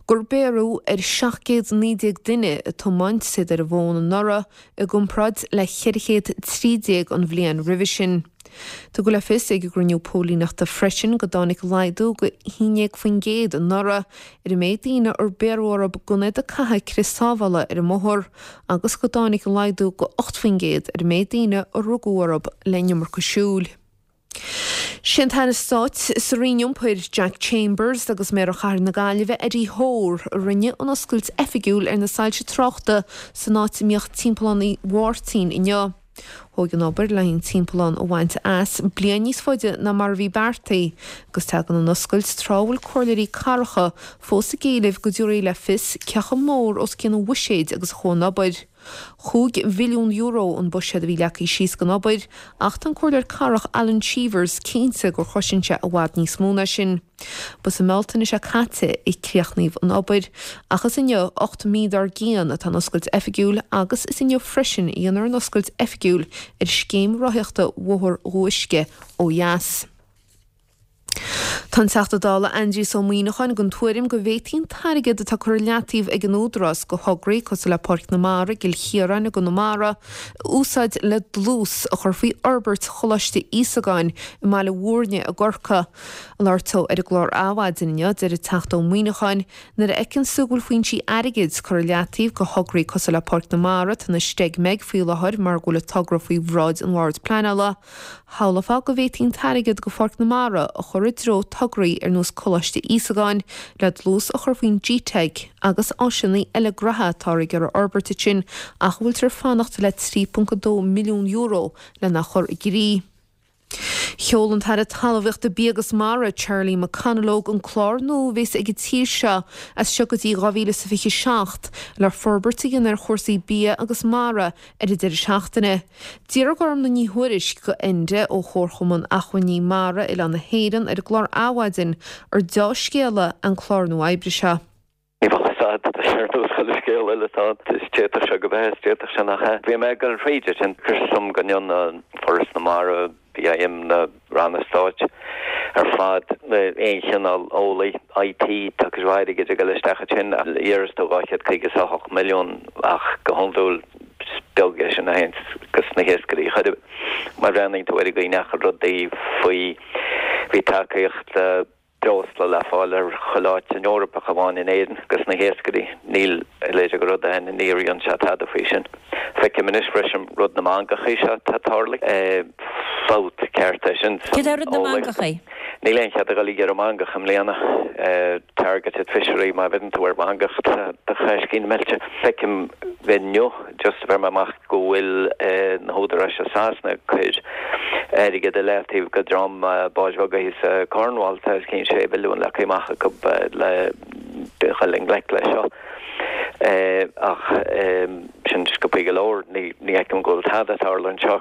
gur bhéarradh ar 719 duine ag tiomáint is iad ar a bhfón anuraidh i gcomparáid le 413 an bhliain roimhe sin. Tugadh le fios ag an gcruinniú póilíneachta freisin go dtáinig laghdú go 11% anuraidh ar an méid daoine ar bhéarradh orthu gan iad ag caitheamh crios sábhála ar an mbóthar agus go dtáinig laghdú go 8% ar an méid daoine a rugadh orthu le an iomarca siúil. Sé an tAire Stáit sa Roinn Iompair, Jack Chambers agus Méara Chathair na Gaillimhe, Eddie Hoare, a rinne an oscailt oifigiúil ar na soilse tráchta san áit a mbíodh Timpeallán Uí Mháirtín inniu. Thóg an obair le an timpeallán a bhaint as bliain níos faide ná mar a bhí beartaithe, agus tagann an oscailt tráth a bhfuil comhairleoirí cathracha fós ag éileamh go dtabharfaí le fios cé chomh mór os cionn an bhuiséid agus a chuaigh an obair. €5 mhilliún an buiséad a bhí leagtha síos don obair, ach tá an comhairleoir cathrach Alan Cheevers cinnte gur chosain sé i bhfad níos mó ná sin. Ba sa mBealtaine seo caite a críochnaíodh an obair, ach is inniu, 8 mí dár gcionn, atá an oscailt oifigiúil agus is inniu freisin a dhéanfar an oscailt oifigiúil ar scéim rothaíochta Bhóthar Dhumha Uisce ó dheas. Tá an Teachta Dála Aindrias Ó Muíneacháin den tuairim go bhféadfaí an t-airgead atá curtha i leataobh ag an Údarás do thograí cosúil le Páirc na Mara i gCill Chiaráin i gConamara a úsáid le dlús a chur faoi fhorbairt Choláiste Íosagáin i mBaile Mhúirne i gCorcaigh. Ag labhairt dó ar an gclár Adhmhaidin inniu, deir an Teachta Ó Muíneacháin, Nuair a fheiceanns tú go bhfuil foinsí airgid curtha i leataobh do thograí cosúil le Páirc na Mara, atá ina steig-meig faoi láthair mar go bhfuil an togra faoi bhráid an Bhoird Pleanála, shamhlófá go bhféadfaí an t-airgead do Pháirc na Mara a chur i dtreo tograí ar nós Coláiste Íosagáin le dlús a chur faoin GTeic agus áiseanna eile graithe atáthar ag iarraidh a fhorbairt ansin ach a bhfuiltear ag fanacht le €3.2 milliún lena chur i gcrích. Sheol an tAire Talmhaíochta, Bia agus Mara, Charlie McConalogue, an clár nua a bheas ag an tír seo as seo go dtí 2027 le forbairt a dhéanamh ar chúrsaí bia agus mara ar an deireadh seachtaine. D'fhiafraigh Gormlaith Ní Thuairisg de Enda ó Chomharchumann Acmhainní Mara Oileán na hÉireann ar an gclár Adhmhaidin ar deá-scéala an clár nua oibre seo. Ní bheadh fhios a'd, tá sé ar nós chuile scéal eile atá ann. Is d'fhéadfadh sé go bheith, is d'fhéadfadh sé nach ea. Bhí mé ag dul thríd é sin. Chuir suim go ndéanann Foras na Mara, BIM, na ranna stáit ar fad, aon chineál eolaí, IT, tá cuid mhaith airgid ag dul isteach ansin. Iarras tú 258 milliún ach go hiondúil is beag é sin a théann go sna hiascairí chor ar bith. Má bhreathnaíonn tú ar an gcaoi ndeachaigh rudaí faoi, bhí tacaíocht, breosla le fáil ar chuile áit san Eoraip ach amháin in Éirinn dos na hiascairí. Níl a leithéid de rud ann, níor dhein sé tada faoi sin. Feicim anois freisin rud na mangachaí seo atá tarlaithe. Fabht ceart é sin san Céard é rud na mangachaí? Níl aon chead a dhul ag iarraidh mangach i mbliana. Targeted fishery, má bheireann tú ar mhangach tá do chaiscín meilte. Feicim inniu just a bheir mé amach go bhfuil na húdaráis i Sasana ag cur airgead i leataobh go dream báid bheaga thíos i Cornwall, tá os cionn 6 mhilliún leagtha amach acu le dhul i ngleic leis seo. Ach sin sciobthaí go leor, ní fheicim go bhfuil tada ag tarlú anseo.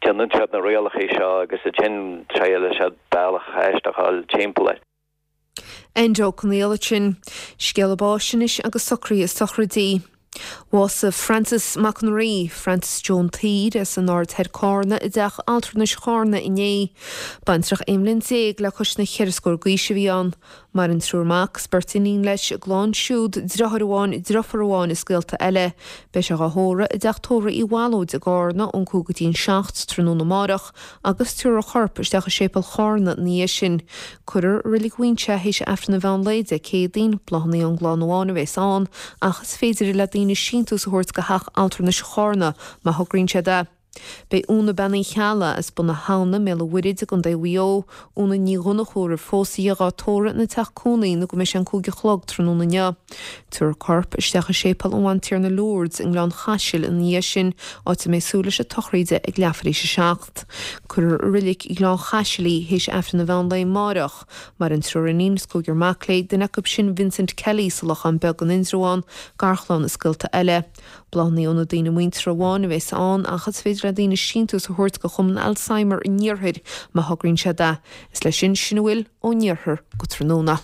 Déanann siad na rialacha seo agus ansin triaileann siad bealach aisteach a fháil timpeall air. Enda Ó Conghaile ansin. Scéala báis anois agus socruithe sochraidí. Bhásaigh Francis Mac an Rí, Francis Joe an tSaoir, as an Aird Thoir Cárna i dteach altranais Chárna inné. Baintreach 11 mbliain le cois na cheithre scór d'aois a bhí ann. Maireann triúr mac 's beirt iníon leis, a gclann siúd, driotháir amháin, driofúr amháin is gaolta eile. Beidh sé dhá thórramh i dteach tórraimh Uí Bhallóid i gCárna ón 5 go dtí an 7 tráthnóna amáireach agus tabharfar a chorp isteach i séipéal Chárna ina dhiaidh sin. Cuirfear i Reilig Mhuinseo é théis Aifreann an mheán lae Dé Céadaoin. Bláthanna ón gclann amháin a bhéas ann ach is féidir le daoine síntiús a thabhairt go theach altranais Chárna má thograíonn siad é. Beidh Úna Bean Uí Cheallaigh as Bun na hAbhna, i mBéal an Mhuirthid i gContae Mhaigh Eo, Úna Ní Dhonnchú a raibh phós aici dhá tórramh ina teach cónaí nó go mbeidh sé an 5 a chlog tráthnóna inniu. Tabharfar a corp isteach i Séipéal an Bhantiarna Lourdes i nGleann Chaisil ina dhiaidh sin, áit a mbeidh súil leis an tsochraíde ag leathuair théis a 7. Cuirfear i Reilig Ghleann Chaisil í théis Aifreann an mheán lae amáireach. Maireann triúr iníon is cúigear mac léi, duine acu sin Vincent Kelly sa Lochán Beag in Indreabhán, garchlann is gaolta eile. Bláthanna ó na daoine muinteartha amháin a bheas ann ach is féidir le daoine síntiús a thabhairt go Chumann Alzheimer an Iarthair má thograíonn siad é. Is leis sin sin a bhfuil ón iarthar go tráthnóna.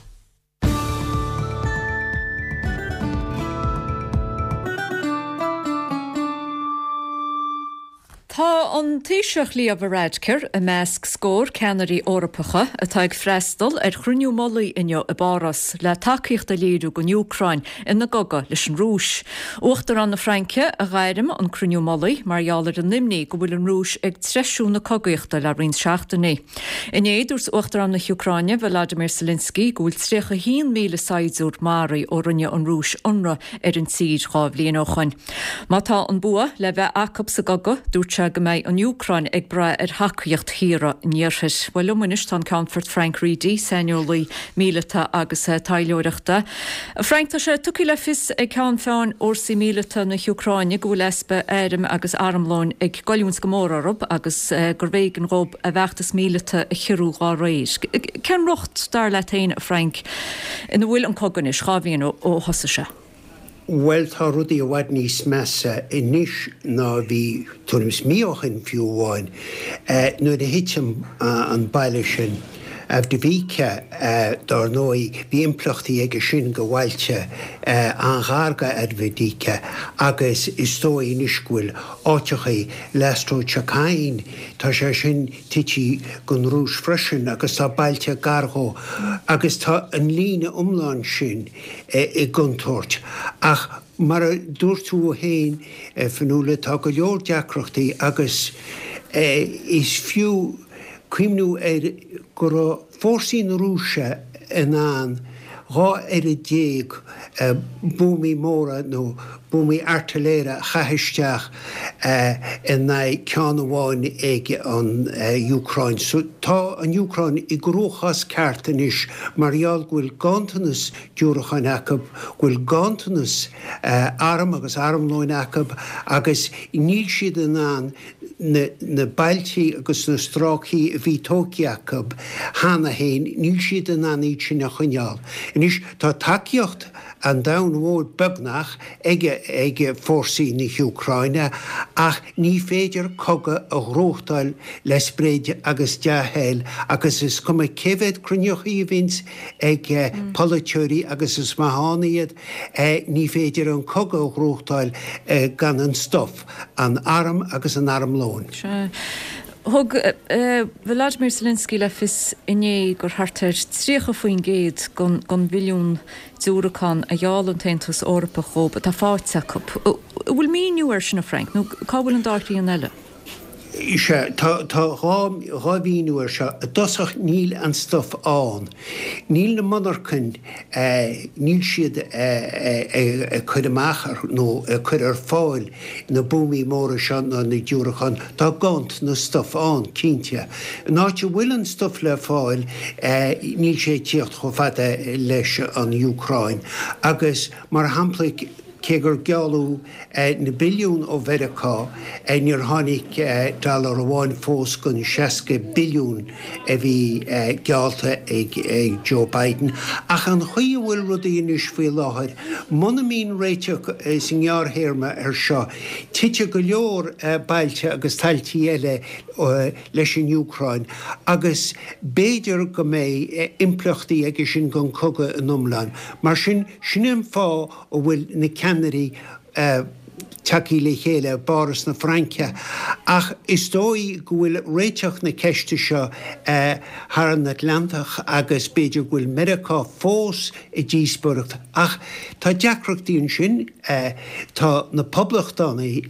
Tá an Taoiseach Leo Varadkar i measc scór ceannairí Eorpacha atá ag freastal ar chruinniú mullaigh inniu i bPáras le tacaíocht a léiriú don Úcráin ina gcogadh leis an Rúis. Uachtarán na Fraince a ghairm an cruinniú mullaigh mar gheall ar an imní go bhfuil an Rúis ag treisiú na cogaíochta le roinnt seachtainí. Inné, dúirt Uachtarán na hÚcráine, Volodymyr Zelensky, go bhfuil 31,000 saighdiúir maraithe ó rinne an Rúis ionradh ar an tír 2 bhliain ó shoin. Má tá an bua le bheith acu sa gcogadh, dúirt sé go mbeidh an Úcráin ag brath ar thacaíocht thíortha an Iarthair. Bhuel, liom anois tá an Ceannfort Frank Reidy, saineolaí míleata agus taidhleoireachta. Frank, tá sé tugtha le fios ag ceann feadhain fhórsaí míleata na hÚcráine go bhfuil easpa airm agus armlóin ag goilliúint go mór orthu agus gurbh éigean dhóibh a bhfeachtas míleata a chiorrú dhá réir. Cén riocht, dar leat féin, a Frank, ina bhfuil an cogadh anois, 2 bhliain ó thosaigh sé? Bhuel, tá rudaí i bhfad níos measa anois ná a bhí tuairim is mí ó shin fiú amháin. Nuair a thit an baile sin, Avdiivka, dár ndóigh, bhí impleachtaí aige sin go bhailte an-ghar go Avdiivka agus is dóigh anois go bhfuil áiteachaí, Lastochkyne, tá sé sin tite don Rúis freisin agus tá bailte gar dhó agus tá an líne iomlán sin i gcontúirt. Ach mar a dúirt tú féin, a Fionnuala, tá go leor deacrachtaí agus is fiú cuimhniú air go raibh fórsaí na Rúise in ann 12 oiread buamaí móra nó buamaí airtiléire a chaith isteach in aghaidh ceann amháin ag an Úcráin. So tá an Úcráin i gcruachás ceart anois mar gheall go bhfuil ganntanas diúracáin acu, go bhfuil ganntanas arm agus armlóin acu agus níl siad in ann na bailtí agus na stráicí a bhí tógtha acu cheana féin, níl siad in ann iad sin a choinneáil. Anois tá tacaíocht an domhain mhóir beagnach ag ag fórsaí na hÚcráine ach ní féidir cogadh a ghnóthachtáil le sprid agus dea-thoil agus is cuma cé mhéad cruinneochaí a bhíonns ag polaiteoirí agus is maith ann iad, ní féidir an cogadh a ghnóthachtáil gan an stuif. an arm agus an armlóin. Sea. Thug Volodymyr Zelensky le fios inné gur thart ar 30% den bhilliún diúracán a gheall an tAontas Eorpach dhóibh atá faighte acu. An bhfuil míniú air sin, a Frank, nó cá bhfuil an dá thrian eile? Sea, tá 2 mhíniú air seo. I dtosach, níl an stuif ann. Níl na monarchain, níl siad ag cur amach nó ag cur ar fáil na buamaí móra seo ná na diúracáin. Tá ganntanas stuif ann, cinnte. An áit a bhfuil an stuif le fáil, níl sé ag tíocht chomh fada leis an Úcráin. Agus, mar shampla, Cé gur gealladh na billiúin ó Mheiriceá, níor tháinig dollar amháin fós den 60 billiún a bhí geallta ag Joe Biden. Ach an chaoi a bhfuil rudaí anois faoi láthair, muna mbíonn réiteach sa ngearrthéarma air seo, titfidh go leor bailte agus tailtí eile leis an Úcráin agus b'fhéidir go mbeidh impleachtaí aige sin don chogadh in iomlán. Mar sin, sin an fáth a bhfuil na ceannairí. tagtha le chéile i bPáras na Fraince ach is dóigh go bhfuil réiteach na ceiste seo thar an Atlantach agus b'fhéidir go bhfuil Meiriceá fós i díospóireacht ach tá deacrachtaí ansin, tá na Poblachtánaigh,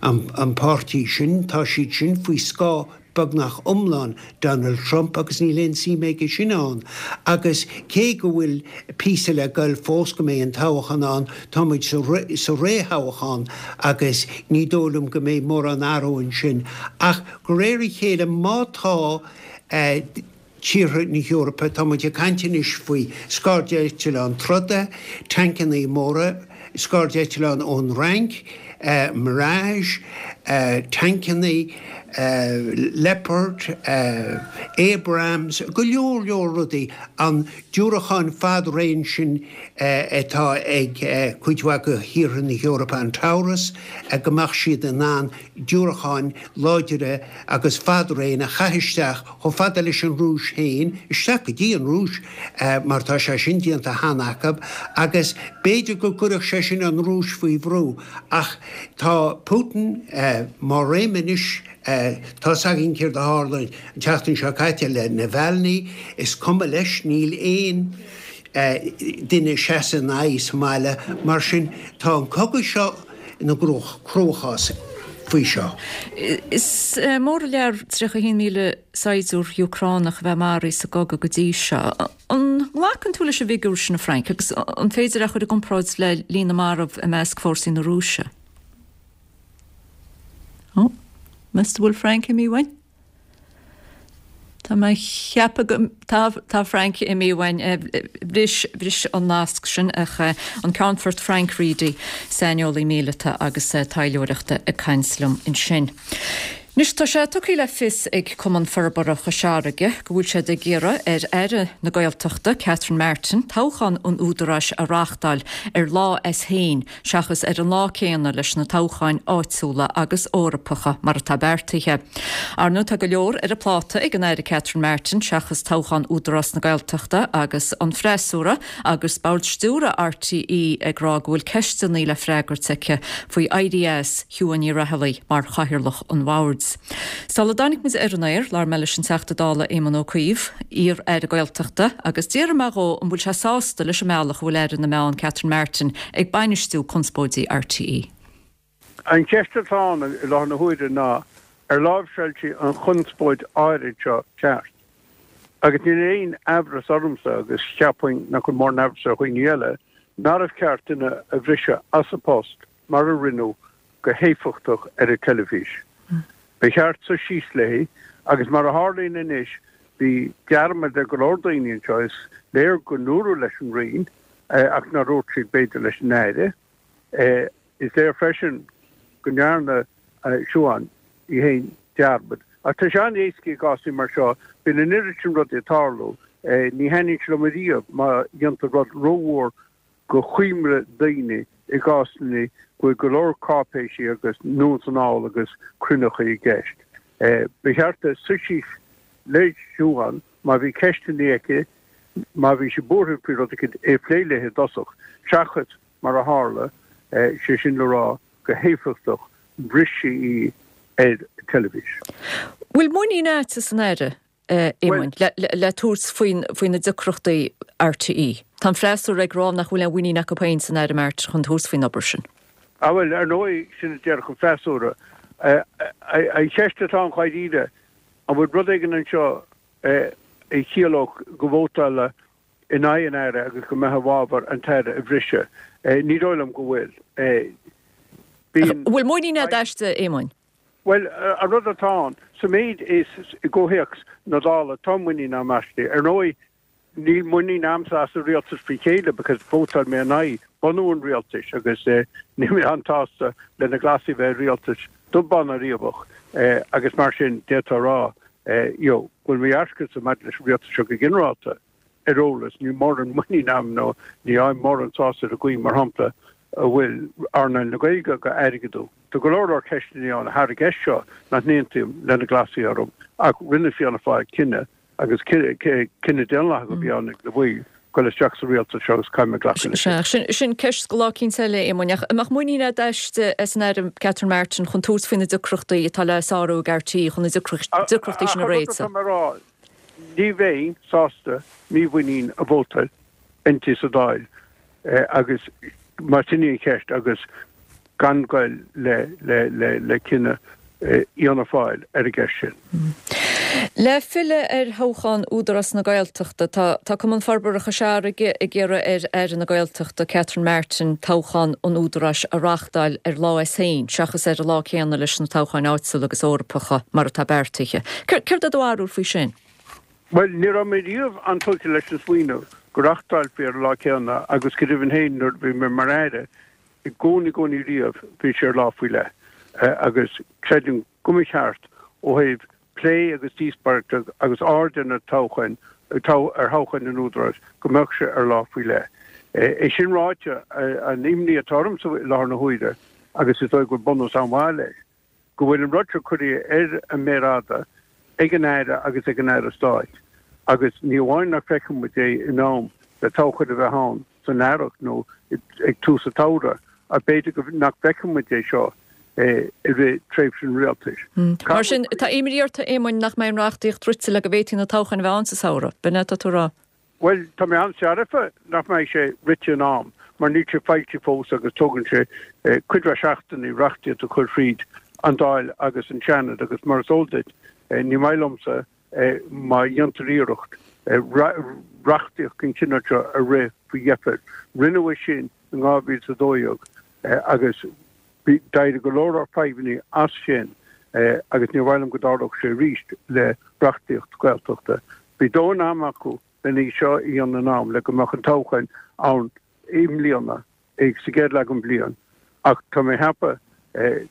an páirtí sin, tá siad sin faoi scáth beagnach iomlán Donald Trump agus níl aon suim aige sin ann. Agus cé go bhfuil píosa le goil fós go mbeidh an toghchán ann, tá muid sa réamhthoghchán agus ní dóigh liom go mbeidh mórán athrú ansin. Ach de réir a chéile má tá tíortha na hEorpa, tá muid ag caint anois faoi scairdeitleáin troda, tancannaí móra, scairdeitleáin ón Fhrainc, Mirage, tancannaí, Leopard, Abrams, go leor leor rudaí, an diúracáin fad-raon sin atá ag cuid mhaith de thíortha na hEorpa, an Taurus, go mbeadh siad in ann diúracáin láidire agus fad-raon a chaith isteach chomh fada leis an Rúis féin, isteach go dtí an Rúis, mar tá sé sin déanta cheana acu, agus b'fhéidir go gcuirfeadh sé sin an Rúis faoi bhrú. Ach tá Putin mar réim anois, tá's againn céard a tharla an tseachtain seo caite le Navalny, is cuma leis, níl aon duine ag seasamh ina aghaidh sa mbaile, mar sin tá an cogadh seo ina gcruachás faoi seo. Is mór an lear 31,000 saighdiúir Úcránach a bheith maraithe sa gcogadh go dtí seo. An nglacann tú leis an bhfigiúr sin, a Frank, agus an féidir é a chur i gcomparáid le líon na marbh i measc fórsaí na Rúise? Ó, meas tú an bhfuil Frank imithe uainn? Tá mé ag ceapadh go, tá, tá Frank imithe uainn. Bhris, bhris an nasc sin ach an Ceannfort Frank Reidy, saineolaí míleata agus taidhleoireachta ag caint liom ansin. Anois tá sé tugtha le fios ag Cumann Forbartha Chois Fharraige go bhfuil siad ag iarraidh ar Aire na Gaeltachta, Catherine Martin, toghchán an Údaráis a reáchtáil ar lá as féin seachas ar an lá céanna leis na toghcháin áitiúla agus Eorpacha mar atá beartaithe. Ar ndóigh tá go leor ar a pláta ag an Aire Catherine Martin seachas toghchán Údarás na Gaeltachta agus an freasúra agus Bord Stiúrtha RTÉ ag rá go bhfuil ceisteanna le freagairt aici faoi éirí as Shiubhán Ní Raghallaigh mar chathaoirleach an bhoird. Sula dtáinig muid ar an aer, labhair mé leis an Teachta Dála Éamon Ó Cuív, iar-aire Gaeltachta, agus d'fhiafraigh mé dhó an bhfuil sé sásta leis an mbealach a bhfuil Aire na Meán Catherine Martin ag bainistiú conspóidí RTÉ. An cheist atá ann i láthair na huaire ná ar láimhseáil sí an chonspóid áirid seo ceart? Agus níl aon aimhreas ormsa, agus cheapfainn nach bhfuil mórán aimhreas ar dhaoine eile, nárbh cheart duine a bhriseadh as a post mar a rinneadh go héifeachtach ar an teilifís. Ba cheart suí síos léi agus mar a tharlaíonn anois bhí dearmad ar go leor daoine anseo, is léir go ndúradh leis an Roinn ach nár dhúirt siad b'fhéidir leis an Aire. Is léir freisin go ndearna Siubhán í féin dearmad. Ach tá sé an-éasca i gcásanna mar seo, bíonn an oiread sin rudaí ag tarlú, ní thaitníonn sé liom ariamh má dhéantar rud rómhór go choimre daoine i gcásanna go bhfuil go leor cáipéisí agus anonn is anall agus cruinneachaí i gceist. Ba cheart di suí síos le Siubhán má bhí ceisteanna aici, má bhí sí buartha faoi rud éicint, é a phlé léi i dtosach, seachas mar a tharla, sé sin le rá, go héifeachtach, bhris sí í ar teilifís. Bhfuil muinín agat san Aire? a Éamoinn, le tabhairt faoi na deacrachtaí RTÉ. Tá an freasúra ag rá nach bhfuil aon mhuinín acu féin san Aire Martin chun tabhairt faoin obair sin. Ah bhuel, ar ndóigh, sin a déarfadh an freasúra. An cheist atá ann dháiríre, an bhfuil rud éigin anseo a chiallódh go vótálfá in aghaidh an Aire agus go mbeifeá i bhfabhar an tAire a bhriseadh? Ní dóigh liom go bhfuil. Bíonn. Bhfuil muinín agat aisti, a Éamoinn? Bhuel, an rud atá ann, sa méid is i gcomhthéacs na Dála, tá muinín agam aisti. Ar ndóigh, níl muinín agamsa as an rialtas faoi chéile because vótáil mé in aghaidh bunú an rialtais agus níl mé an-tsásta le na Glasaigh a bheith i rialtas dubh bán ná riabhach agus mar sin d'fhéadfá a rá you know go bhfuil mo dhearcadhsa maidir leis an rialtas seo go ginearálta. ar eolas, níl mórán muinín agam nó ní fhaighim mórán sásamh ar an gcaoi, mar shampla, a bhfuil earnáil na Gaeilge á airgeadú. Tá go leor leor ceisteanna ann thar an gceist seo nach n-aontaím le na Glasaigh orthu, ach rinne Fianna Fáil cinneadh, agus cinneadh daonlathach a bhí ann ag na baill. Goil isteach sa rialtas seo agus caithfidh mé glacadh leis. Sea, sin, sin ceist do lá eicínt eile, a Éamoinn. Ach an mbeadh muinín agat aisti, as an Aire Catherine Martin chun tabhairt faoi na deacrachtaí atá le sárú ag RTÉ chun na deacrachtaí sin a Ach an rud réiteach? atá mé a rá, ní bheinn sásta mímhuinín a vótáil inti sa Dáil agus más sin í an cheist agus gan goil le cinneadh Fhianna Fáil ar an gceist sin. Le filleadh ar thoghchán Údarás na Gaeltachta, tá Cumann Forbartha Chois Fharraige ag iarraidh ar Aire na Gaeltachta, Catherine Martin, toghchán an Údaráis a reáchtáil ar lá as féin seachas ar an lá céanna leis na toghcháin áitiúla agus Eorpacha mar atá beartaithe. Céard é do bharúil faoi sin? Bhuel, ní raibh mé riamh an-tógtha leis an smaoineamh go reáchtálfaí ar an lá céanna agus go deimhin féin nuair a bhí mé mar Aire, I gcónaí, gcónaí riamh, bhí sé ar lá faoi leith agus creidim go mba cheart ó thaobh plé agus díospóireachta agus aird ar na toghcháin, ar thoghcháin an Údaráis, go mbeadh sé ar lá faoi leith. É sin ráite, an imní atá ormsa i láthair na huaire, agus is dóigh go bhfuil bunús an-mhaith leis, go bhfuil an rud seo curtha ar an méar fhada ag an Aire agus ag an Aire Stáit agus ní amháin nach bhfeicfidh muid é in am le toghchán a bheith ann san earrach nó ag tús an tsamhraidh ach b'fhéidir go nach bhfeicfidh muid é seo i rith tréimhse an rialtais. Mar sin, tá imní ort, a Éamoinn, nach mbeidh an reachtaíocht rite le go bhféadfaí na toghcháin a bheith ann sa samhradh, b'in é atá tú a rá? Bhuel, tá mé an-searfa nach mbeidh sé rite in am, mar níl sé foilsithe fós agus tógann sé cuid mhaith seachtainí reachtaíocht a chur thríd an Dáil agus an Seanad agus mar is eol duit, ní maith liomsa má dhéantar iarracht reachtaíocht den chineál seo a rith faoi dheifir. Rinneadh é sin in 2012 agus d'éirigh go leor fadhbanna as sin agus níor mhaith liom go dtarlódh sé arís le reachtaíocht Gaeltachta. Bhí dóthain ama acu len í seo a dhéanamh in am le go mbeadh an toghchán ann i mbliana, sa gcéad leath den bhliain, ach tá mé ag ceapadh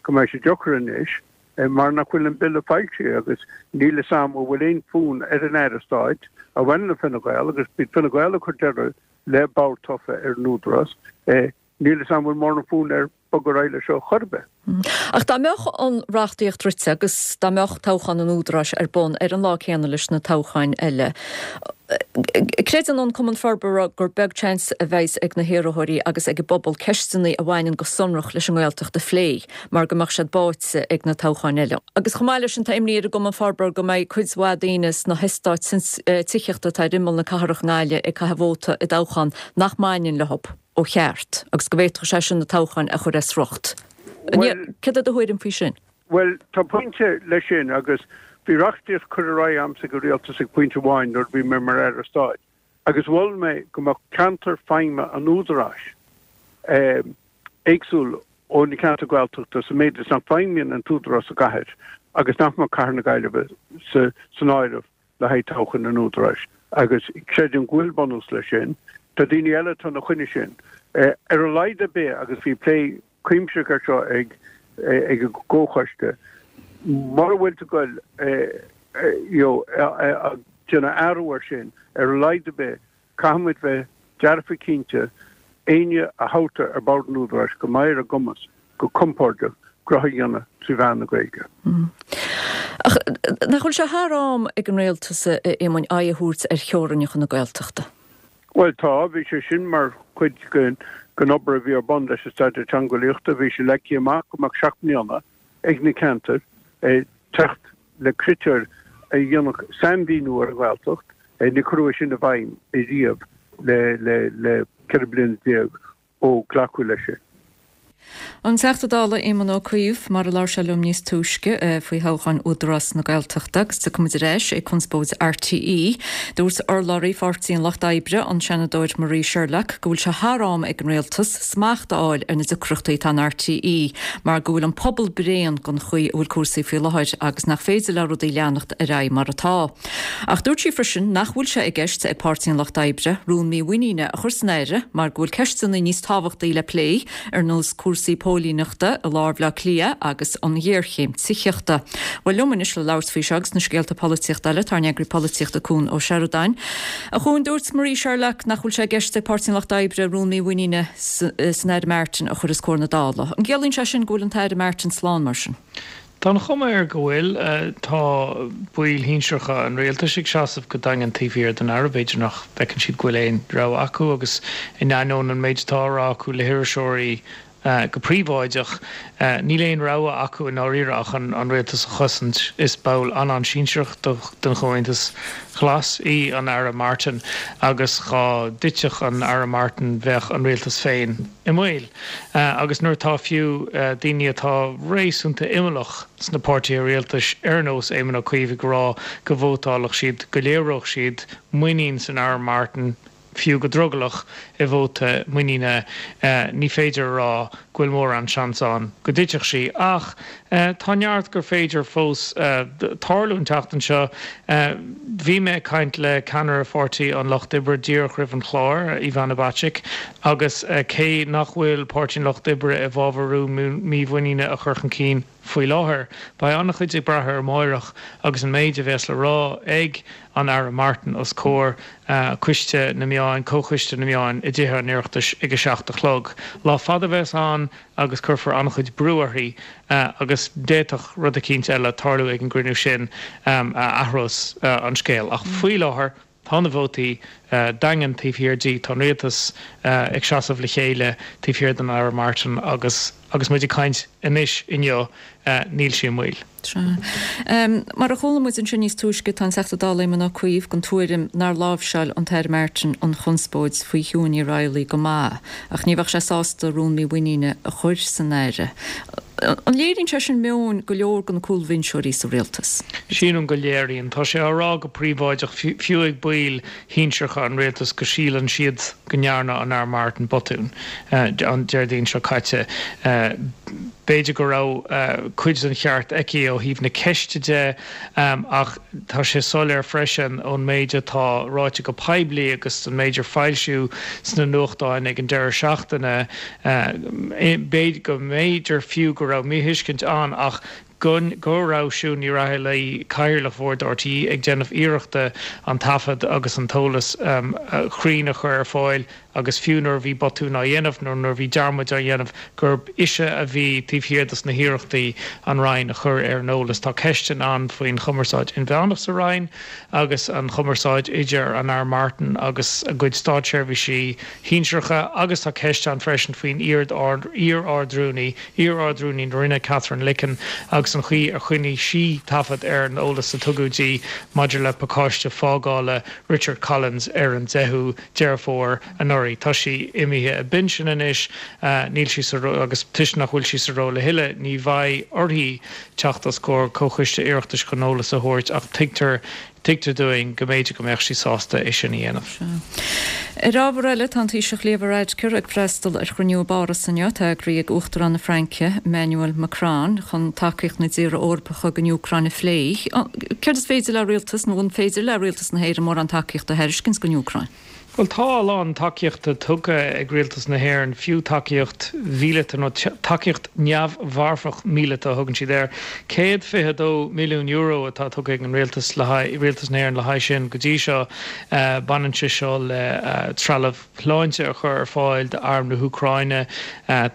go mbeidh sé deacair anois mar nach bhfuil an Bille foilsithe agus níl fhios a'm an bhfuil aon fhonn ar an Aire Stáit a bhaineann le Fine Gael agus b'iad Fine Gael a chuir deireadh le bord tofa ar an Údarás. Níl fhios a'm an bhfuil mórán fonn air bogadh ar aghaidh leis seo chor ar bith. Ach dá mbeadh an reachtaíocht rite agus dá mbeadh toghchán an Údaráis ar bun ar an lá céanna leis na toghcháin eile, creideann an Cumann Forbartha gur beag seans a bheas ag na hiarrthóirí agus ag an bpobal ceisteanna a bhaineann go sonrach leis an nGaeltacht a phlé mar go mbeadh siad báite ag na toghcháin eile. Agus chomh maith leis sin tá imní ar an gCumann Forbartha go mbeidh cuid mhaith daoine sna heastáit tithíochta atá ar imeall na cathrach i nGaillimh ag caitheamh vóta i dtoghchán nach mbaineann leo. ó cheart agus go bhféadfadh sé sin na toghcháin a chur as riocht. Céard é do thuairim faoi sin? Bhuel, tá pointe leis sin agus bhí reachtaíocht curtha ar aghaidh a'msa ag an Rialtas ag pointe amháin nuair a bhí mé mar Aire Stáit agus mhol mé go mbeadh ceantar feidhme an Údaráis éagsúil ó na ceantair Ghaeltachta sa méid is nach bhfeidhmíonn an tÚdarás sa gcathair agus nach mbeadh Cathair na Gaillimhe san áireamh le haghaidh toghchán an Údaráis agus creidim go bhfuil bunús leis sin. Tá daoine eile atá ina choinne sin. Ar a laghad ar bith, agus bhí plé cuimsitheach air seo ag ag an gcomhchoiste, mura bhfuil tú ag goil you know ag déanamh athrú air sin, ar a laghad ar bith, Caithfidh muid bheith dearfa cinnte, éinne a thoghtar ar bord an Údaráis go mbeidh ar a gcumas go compordach gnó a dhéanamh trí mheán na Gaeilge. Ach nach bhfuil sé thar am ag an Rialtas, a Éamoinn, aghaidh a thabhairt ar theorainneacha na Gaeltachta? Bhuel tá, bhí sé sin mar chuid den obair a bhí ar bun leis an Staidéar Teangeolaíochta. Bhí sé leagtha amach go mbeadh 7 mbliana ag na ceantair teacht le critéir a dhéanfadh sainmhíniú ar an nGaeltacht. Níor cuireadh é sin i bhfeidhm riamh le 14 bliana ó glacadh leis sin. An Teachta Dála Éamon Ó Cuív, mar a labhair sé liom níos túisce faoi thoghcháin Údarás na Gaeltachta agus tiocfaidh muid ar ais ag conspóid RTÉ. Dúirt urlabhraí Pháirtí an Lucht Oibre, an Seanadóir Marie Sherlock, go bhfuil sé thar am ag an Rialtas smacht a fháil ar na deacrachtaí atá in RTÉ mar go bhfuil an pobal bréan den chaoi a bhfuil cúrsaí faoi láthair agus nach féidir le rudaí leanacht ar aghaidh mar atá. Ach dúirt sí freisin nach bhfuil sé i gceist ag Páirtí an Lucht Oibre rún mímhuiníne a chur san Aire mar go bhfuil ceisteanna níos tábhachtaí le plé, ar nós cúrsaí póilíneachta i lár Bhaile Átha Cliath agus an ghéarchéim tithíochta. Bhuel, liom anois le labhairt faoi seo agus na scéalta polaitíochta eile, tá ár n-eagraí polaitíochta Cuan Ó Seireadáin. A Chuain, dúirt Marie Sherlock nach bhfuil sé i gceist ag Páirtí an Lucht Oibre rún mímhuiníne san Aire Martin a chur os comhair na Dála. An gciallaíonn sé sin go bhfuil an tAire Martin slán mar sin? Tá an chuma air go bhfuil. Tá baill shinsearacha an rialtais ag seasamh go daingean taobh thiar den Aire. B'fhéidir nach bhfeiceann siad go bhfuil aon rogha acu agus in ainneoin an méid atá á rá acu le hiriseoirí go príobháideach, níl aon rogha acu i ndáiríre ach an rialtas a chosaint. Is ball an-an-sinsearach den Chomhaontas Glas í an Aire Martin agus dhá dtitfeadh an Aire Martin bheadh an rialtas féin i mbaol. Agus nuair atá fiú daoine atá réasúnta imeallach sna páirtithe rialtais ar nós Éamon Ó Cuív ag rá go vótálfadh siad, go léireodh siad muinín san Aire Martin, fiú go drogallach, i vóta muiníne, ní féidir a rá go bhfuil mórán seans ann go dtitfeadh sí. Ach tá neart gur féidir fós tarlú an tseachtain seo. Bhí mé ag caint le ceannaire Pháirtí an Lucht Oibre díreach roimh an chlár, Ivana Bacik, agus cé nach bhfuil Páirtí an Lucht Oibre i bhfabhar rún mímhuiníne a chur chun cinn faoi láthair, beidh an-chuid ag brath ar amáireach agus an méid a bheas le rá ag an Aire Martin os comhair Coiste na Meáin, Comhchoiste na Meáin i dTithe an Oireachtais ag a 7 a chlog. Lá fada a bheas ann agus cuirfear an-chuid brú uirthi agus d'fhéadfadh rud eicínt eile tarlú ag an gcruinniú sin a athrós an scéal. Ach faoi láthair tá na vótaí daingean taobh thiar di, tá an rialtas ag seasamh le chéile taobh thiar den Aire Martin agus agus muid ag caint anois inniu níl sí i mbaol. Sea. Mar a chuala muid ansin níos túisce, tá an Teachta Dála Éamon Ó Cuív den tuairim nár láimhseáil an tAire Martin an chonspóid faoi Shiún Ní Raghallaigh go maith, ach ní bheadh sé sásta rún mímhuiníne a chur san Aire. An léiríonn sé sin meon go leor de na cúlbhinseoirí sa rialtas? Sílim go léiríonn. Tá sé á rá go príobháideach, fiú ag baill shinsearacha an rialtais, go síleann siad go ndearna an Aire Martin botún an Déardaoin seo caite. B'fhéidir go raibh cuid den cheart aici ó thaobh na ceiste de ach tá sé soiléir freisin ón méid atá ráite go poiblí agus an méid ar foilsíodh sna nuachtáin ag an deireadh seachtaine, b'fhéidir go mb'fhéidir fiú go raibh míthuiscint ann ach go go raibh Siún Ní Raghallaigh, Cathaoirleach Bhord RTÉ, ag déanamh iarrachta an taifead agus an t-eolas cruinn a chur ar fáil agus fiú nuair a bhí botún á dhéanamh nó nuair a bhí dearmaid á dhéanamh gurb ise a bhí taobh thiar dos na hiarrachtaí an Roinn a chur ar an eolas. Tá ceisteanna ann faoin chumarsáid inmheánach sa Roinn agus an chumarsáid idir an Aire Martin agus a gcuid státseirbhísí shinsearacha agus tá ceist ann freisin faoin iar-Ard-Rúnaí, iar-Ard-Rúnaí na Roinne, Katherine Licken, agus an chaoi ar choinnigh sí taifead ar an eolas a tugadh di maidir le pacáiste fágála Richard Collins ar an 10ú Deireadh Fómhair anuraidh. Tá sí imithe i bpinsean anois, níl sí sa agus toisc nach bhfuil sí sa ról a thuilleadh, ní bheidh uirthi teacht os comhair Comhchoiste Oireachtais chun eolas a thabhairt ach tuigtear Tuigtear dúinn go mb'fhéidir go mbeadh sí sásta é sin a dhéanamh. Ar ábhar eile, tá an Taoiseach Leo Varadkar ag freastal ar chruinniú i bPáras inniu, atá eagraithe ag Uachtarán na Fraince, Emmanuel Macron, chun tacaíocht na dtíortha Eorpacha don Úcráin a phlé. Céard is féidir le rialtas, nó an féidir le rialtas na hÉireann mórán tacaíochta a thairiscint don Úcráin? Bhuel, tá a lán tacaíochta tugtha ag rialtas na hÉireann, fiú tacaíocht mhíleata, nó tacaíocht neamh-mharfach míleata a thugann siad air. €122 milliún atá tugtha ag an rialtas le haghaidh, rialtas na hÉireann le haghaidh sin go dtí seo. Baineann sé seo le trealamh sláinte a chur ar fáil d'arm na hÚcráine,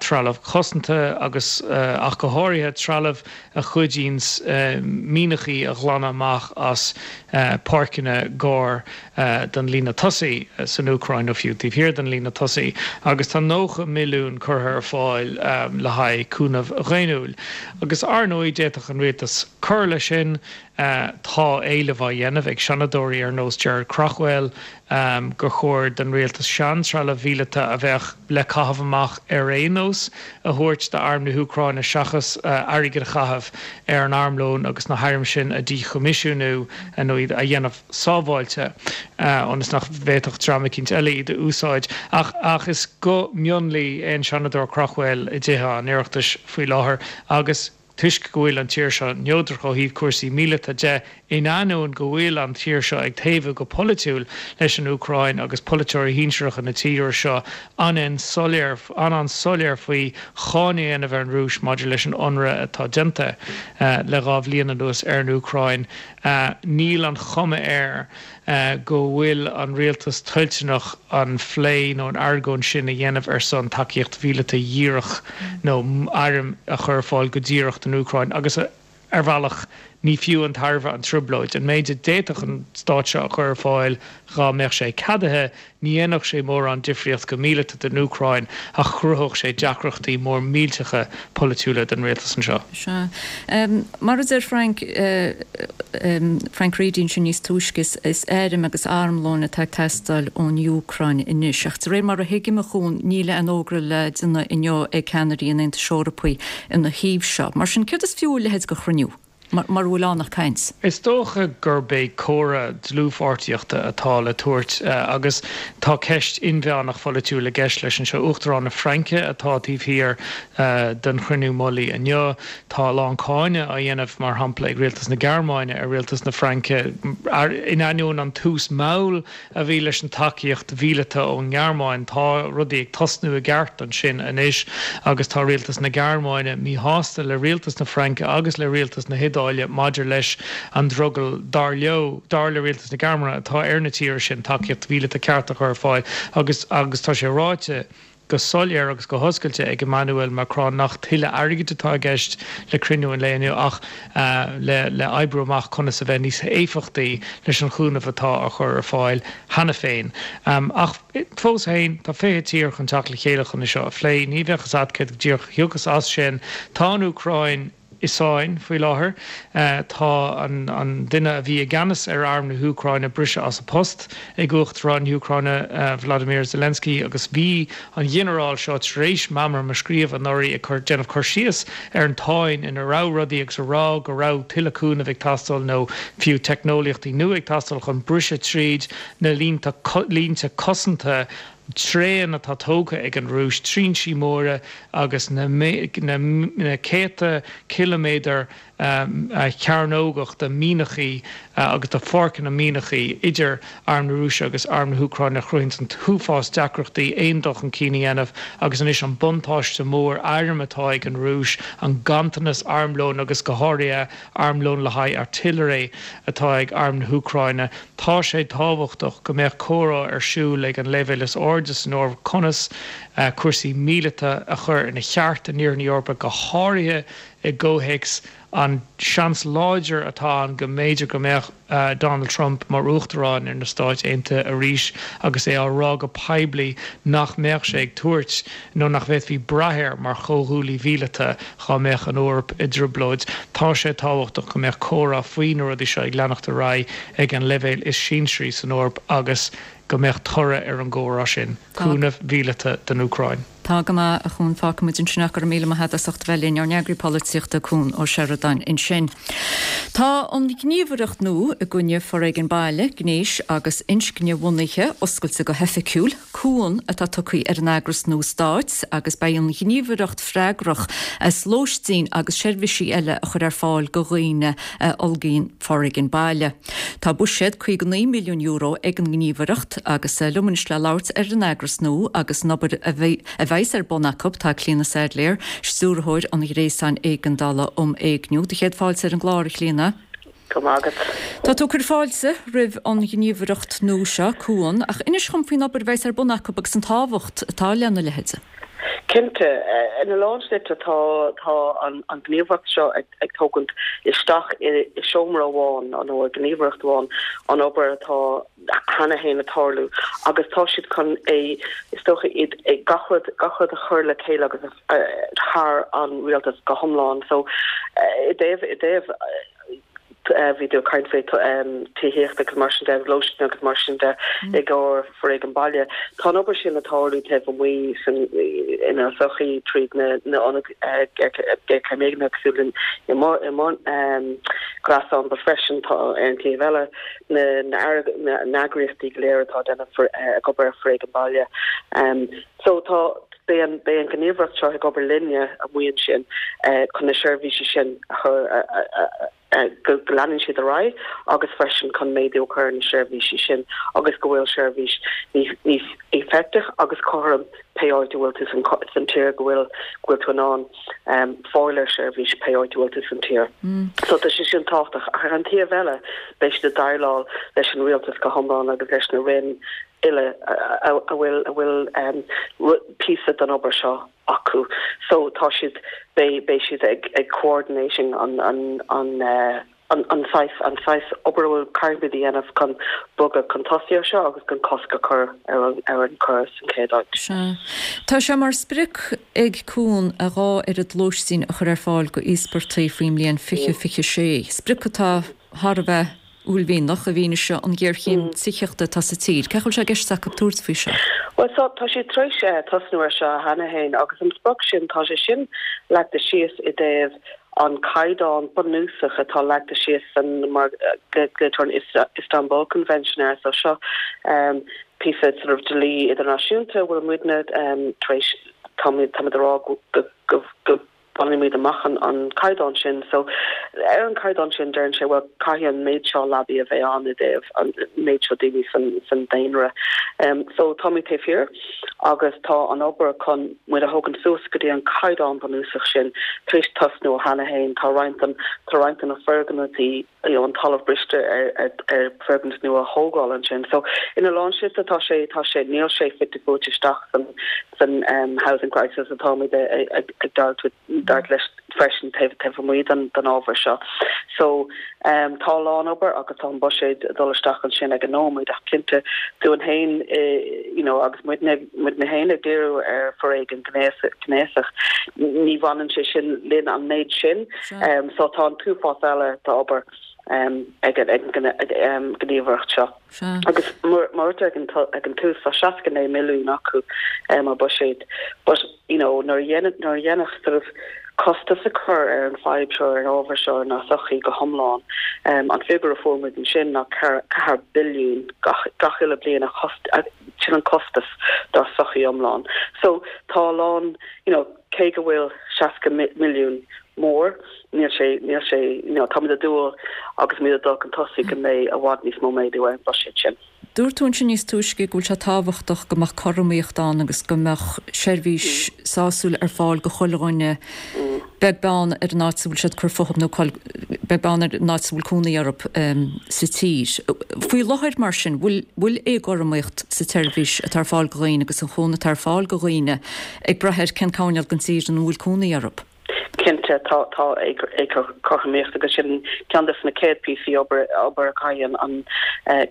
trealamh cosanta agus, ach go háirithe, trealamh a chuidíonns mianachaí a ghlanadh amach as páirceanna gar don líne tosaigh san Úcráin nó fiú taobh thiar den líne tosaigh agus tá 90 milliún curtha ar fáil le haghaidh cúnamh dhaonnúil. Agus ar ndóigh d'fhéadfadh an rialtas cur leis sin. Tá éileamh á dhéanamh ag seanadóirí ar nós Gerard Craughwell gur chóir don rialtas sean-trealamh mhíleata a bheadh le caitheamh amach ar aon nós a thabhairt d'arm na hÚcráine seachas airgead a chaitheamh ar an armlón agus na hairm sin a dhíchoimisiúnú nó iad a dhéanamh sábháilte ionas nach bhféadfadh dream eicínt eile iad a úsáid. Ach ach is guth mionlaigh é an Seanadóir Craughwell i dTithe an Oireachtais faoi láthair agus toisc go bhfuil an tír seo neodrach ó thaobh cúrsaí míleata de, in ainneoin go bhfuil an tír seo ag taobhú go polaitiúil leis an Úcráin agus polaiteoirí shinsearacha na tíre seo an-soiléir an-soiléir faoi cháineadh a dhéanamh ar an Rúis maidir leis an ionradh atá déanta le 2 bhliain anuas ar an Úcráin. Níl an chuma air go bhfuil an rialtas toilteanach an phlé nó an argóint sin a dhéanamh ar son tacaíocht mhíleata dhíreach nó airm a chur ar fáil go díreach don Úcráin agus. Ar bhealach, ní fiú an tairbhe an trioblóid. An méid a d'fhéadfadh an stát seo a chur ar fáil dhá mbeadh sé ceadaithe, ní dhéanfadh sé mórán difríocht go míleata don Úcráin ach chruthódh sé deacrachtaí mór millteacha polaitiúla don rialtas anseo. Sea. Mar a deir Frank, Frank Reidy ansin níos túisce, is airm agus armlóin atá ag teastáil ón Úcráin anois. Ach de réir mar a thuigim, a Chuain, níl aon fhógra le déanamh inniu ag ceannairí an Aontais Eorpaigh ina thaobh seo. Mar sin, céard is fiú a leithéid de chruinniú, mura bhfuil ann ach caint? Is dócha gurb é comhartha dlúthpháirtíochta atá le tabhairt agus tá ceist inmheánach pholaitiúil i gceist leis anseo. Uachtarán na Fraince atá taobh thiar den chruinniú mullaigh inniu. Tá a lán cáineadh á dhéanamh, mar shampla, ag rialtas na Gearmáine ar rialtas na Fraince in ainneoin an tús mall a bhí leis an tacaíocht mhíleata ón nGearmáin. Tá rudaí ag tosnú i gceart ansin anois agus tá rialtas na Gearmáine míshásta le rialtas na Fraince agus le rialtas na hIodáile maidir leis an drogall, dar leo, dar le rialtas na Gearmáine, atá ar na tíortha sin tacaíocht mhíleata ceart a chur ar fáil agus agus tá sé ráite go soiléir agus go hoscailte ag Emmanuel Macron nach tuilleadh airgid atá i gceist le cruinniú an lae inniu ach le le oibriú amach conas a bheith níos éifeachtaí leis an chúnamh atá á chur ar fáil cheana féin. Ach fós féin, tá 20 tír chun teacht le chéile chun é seo a phlé. Ní bheadh fhios agat céard go díreach a thiocfas as sin. Tá an Úcráin. i sáinn faoi láthair. Tá an duine a bhí i gceannas ar arm na hÚcráine briste as a post ag Uachtarán na hÚcráine Vladimir Zelensky agus bhí an ghinearál seo tar éis meamram a scríobh anuraidh ag cur déanamh cur síos ar an tsáinn ina raibh rudaí agus a rá go raibh tuilleadh cúnaimh ag teastáil nó fiú teicneolaíochtaí nua ag teastáil chun briseadh tríd na línte cosanta tréan atá tógtha ag an Rúis, trinsí móra agus na céadta ciliméadar cearnógach de mhianachaí agus de pháirceanna mianachaí idir arm na Rúise agus arm na hÚcráine a chruthaíonn an t-uafás deacrachtaí aon dul chun cinn a dhéanamh agus anois an buntáiste mór airm atá ag an Rúis, an ganntanas armlóin agus go háirithe armlón le haghaidh artillery atá ag arm na hÚcráine. Tá sé tábhachtach go mbeadh comhrá ar siúl ag an leibhéal is airde san Eoraip conas cúrsaí míleata a chur ina cheart in Iarthar na hEorpa, go háirithe i gcomhthéacs an seans láidir atá ann go mb'fhéidir go mbeadh Donald Trump mar Uachtarán ar na Stáit Aontaithe arís agus é á rá go poiblí nach mbeadh sé ag tabhairt nó nach bhféadfaí brath air mar chomhghuaillí mhíleata dhá mbeadh an Eoraip i dtrioblóid. Tá sé tábhachtach go mbeadh comhrá faoi na rudaí seo ag leanacht ar aghaidh ag an leibhéal is sinsearaí san Eoraip agus go mbeadh toradh ar an gcomhrá sin, cúnamh mhíleata don Úcráin. Tá go maith, a Chuan. Fágfaidh muid ansin ach go raibh míle maith agat as ucht a bheith linn. Ár n-eagraí polaitíochta, Cuan Ó Seireadáin ansin. Tá an ghníomhaireacht nua i gcoinne foréigean baile, gnéis agus inscne-bhunaithe oscailte go hoifigiúil. Cuan atá tugtha ar an eagras nua stáit agus beidh an ghníomhaireacht freagrach as lóistín agus seirbhísí eile a chur ar fáil go dhaoine a fhulgaíonn foréigean baile. Tá buiséad €59 milliún ag an ngníomhaireacht agus liom anois le labhairt ar an eagras nua agus an obair a bheas ar bun acu tá Clíona Saidléar, Stiúrthóir an Ghréasáin Éigeandála um Éigniú. Do chéad fáilte ar an gclár, a Chlíona. Go raibh maith agat. Tá tú ag cur fáilte roimh an ghníomhaireacht nua seo, Cuan, ach inis dhom faoin obair a bheas ar bun acu agus an tábhacht atá lena leithéid. Cinnte. Ina lán slite tá tá an ghníomhaireacht seo ag ag tógaint isteach i seomra amháin nó i ngníomhaireacht amháin an obair atá cheana féin ag tarlú agus tá siad chun é is dócha iad gach rud gach rud a chur le chéile agus thar an rialtas go hiomlán. So i dtaobh i dtaobh bhí tú ag caint faoi tithíocht agus mar sin de, lóistín agus mar sin de i gcomhair foréigean baile. Tá an obair sin ag tarlú taobh amuigh san inár sochaí tríd na na ionaid géarchéime éignithe cosúil le i mo i mo ghréasán but freisin tá ar an taobh eile na na na eagraíochtaí go léir atá ag déanamh ag obair ar foréigean baile. So tá beidh an beidh an ghníomhaireacht seo ag obair linne amuigh ansin chun na seirbhísí sin a chur go go leanann siad ar aghaidh agus freisin chun méadú a chur ar na seirbhísí sin agus go bhfuil seirbhís níos níos éifeachtach agus cothrom pé áit a bhfuil tú san san tír go bhfuil go bhfuil tú in ann fáil ar seirbhís pé áit a bhfuil tú san tír. So tá sé sin tábhachtach. Ach ar an taobh eile beidh siad ag déileáil leis an rialtas go hiomlán agus leis na roinn. uile a bhfuil a bhfuil píosa den obair seo acu. So tá siad, beidh beidh siad ag ag coordinating an an an an an saghas an saghas obair a bhfuil caithfimid a dhéanamh chun bogadh chun tosaigh ar seo agus chun cosc a chur ar an ar an choir san chéad áit. Sea. Tá sé mar sprioc ag Cuan a dhá oiread lóistín a chur ar fáil go íospartaigh faoin mbliain 2026, sprioc atá thar a bheith uaillmhianach i bhfianaise an ghéarchéim tithíochta atá sa tír. Cén chaoi a bhfuil sé i gceist acu tabhairt faoi seo? Bhuel, so, tá siad tar éis tosnú ar seo cheana féin agus an sprioc sin, tá sé sin leagtha síos i dtaobh an caighdeán bunúsach atá leagtha síos san, mar a glaoitear an Istanbul Convention air, so seo píosa sort of dlí idirnáisiúnta a bhfuil muidne tar éis, táimid ag rá go, go, go Bainimid amach an caighdeán sin. So, ar an caighdeán sin, deireann sé, bhuel, caithfidh an méid seo leabaí a bheith ann i dtaobh an méid seo daoine san daonra. So, táimid taobh thiar agus tá an obair chun muid a thógaint suas go dtí an caighdeán bunúsach sin tar éis tosnú cheana féin. Tá roinnt den, tá roinnt de na foirgnimh, you know, an talamh briste ar, ar, ar foirgnimh nua a thógáil ansin. So, ina lán slite tá sé, tá sé, níl sé fite fuaite isteach san, san um, housing crisis atáimid ag, ag, ag dart, dart leis freisin taobh, taobh amuigh den, den ábhar seo. So, um, tá a lán obair agus tá an buiséad ag dul isteach ansin ag an nóiméad ach cinnte dúinn féin, eh, you know, agus muidne, muidne féin ag díriú ar foréigean gnéasach, ní bhaineann sé sin linn an méid sin. So tá an t-uafás eile d'obair ag an ngníomhaireacht seo. Agus mar a dúirt ag an tús, tá 69 milliún acu mar buiséad. But, you know, nuair a nuair a dhéanfadh sort of costas a chur ar an fadhb seo, ar an ábhar seo inár sochaí go hiomlán, an figiúr a fuair muid ansin ná 4 billiún gach gach uile bliain a sin an costas dár sochaí iomlán. So tá a lán, you know, cé go bhfuil 60 milliún mór, níl sé, níl sé, you know, táimid ag dúil agus muid ag dul chun tosaigh go mbeidh i bhfad níos mó méadú ar an bhuiséad sin. Dúirt tú ansin níos túisce go bhfuil sé tábhachtach go mbeadh cothromaíocht ann agus go mbeadh seirbhís sásúil ar fáil go chuile dhuine, beag beann ar an áit a bhfuil siad ag cur fúthu nó beag beann ar an áit a bhfuil cónaí orthu sa tír. Faoi láthair mar sin, bhfuil, bhfuil éagothromaíocht sa tseirbhís atá ar fáil go dhaoine agus an chúnamh atá ar fáil go dhaoine ag brath ar cén coirnéal den tír ina bhfuil cónaí orthu. Cinnte, tá, tá éagothromaíocht agus sin ceann de na céad píosaí obair, obair a chaithfidh an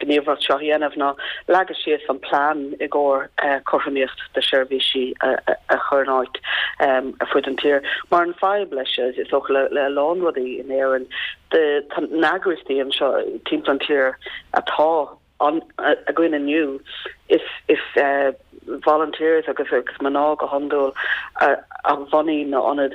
ghníomhaireacht seo a dhéanamh ná leagadh síos an plean i gcomhair cothromaíocht de sheirbhísí a chur in áit ar fud an tír. Mar an fadhb leis, is dócha le, le a lán rudaí in Éirinn, tá na heagraíochtaí anseo timpeall an tír atá ann againn inniu, is is volunteers agus agus mná go hiondúil a bhunaigh na ionaid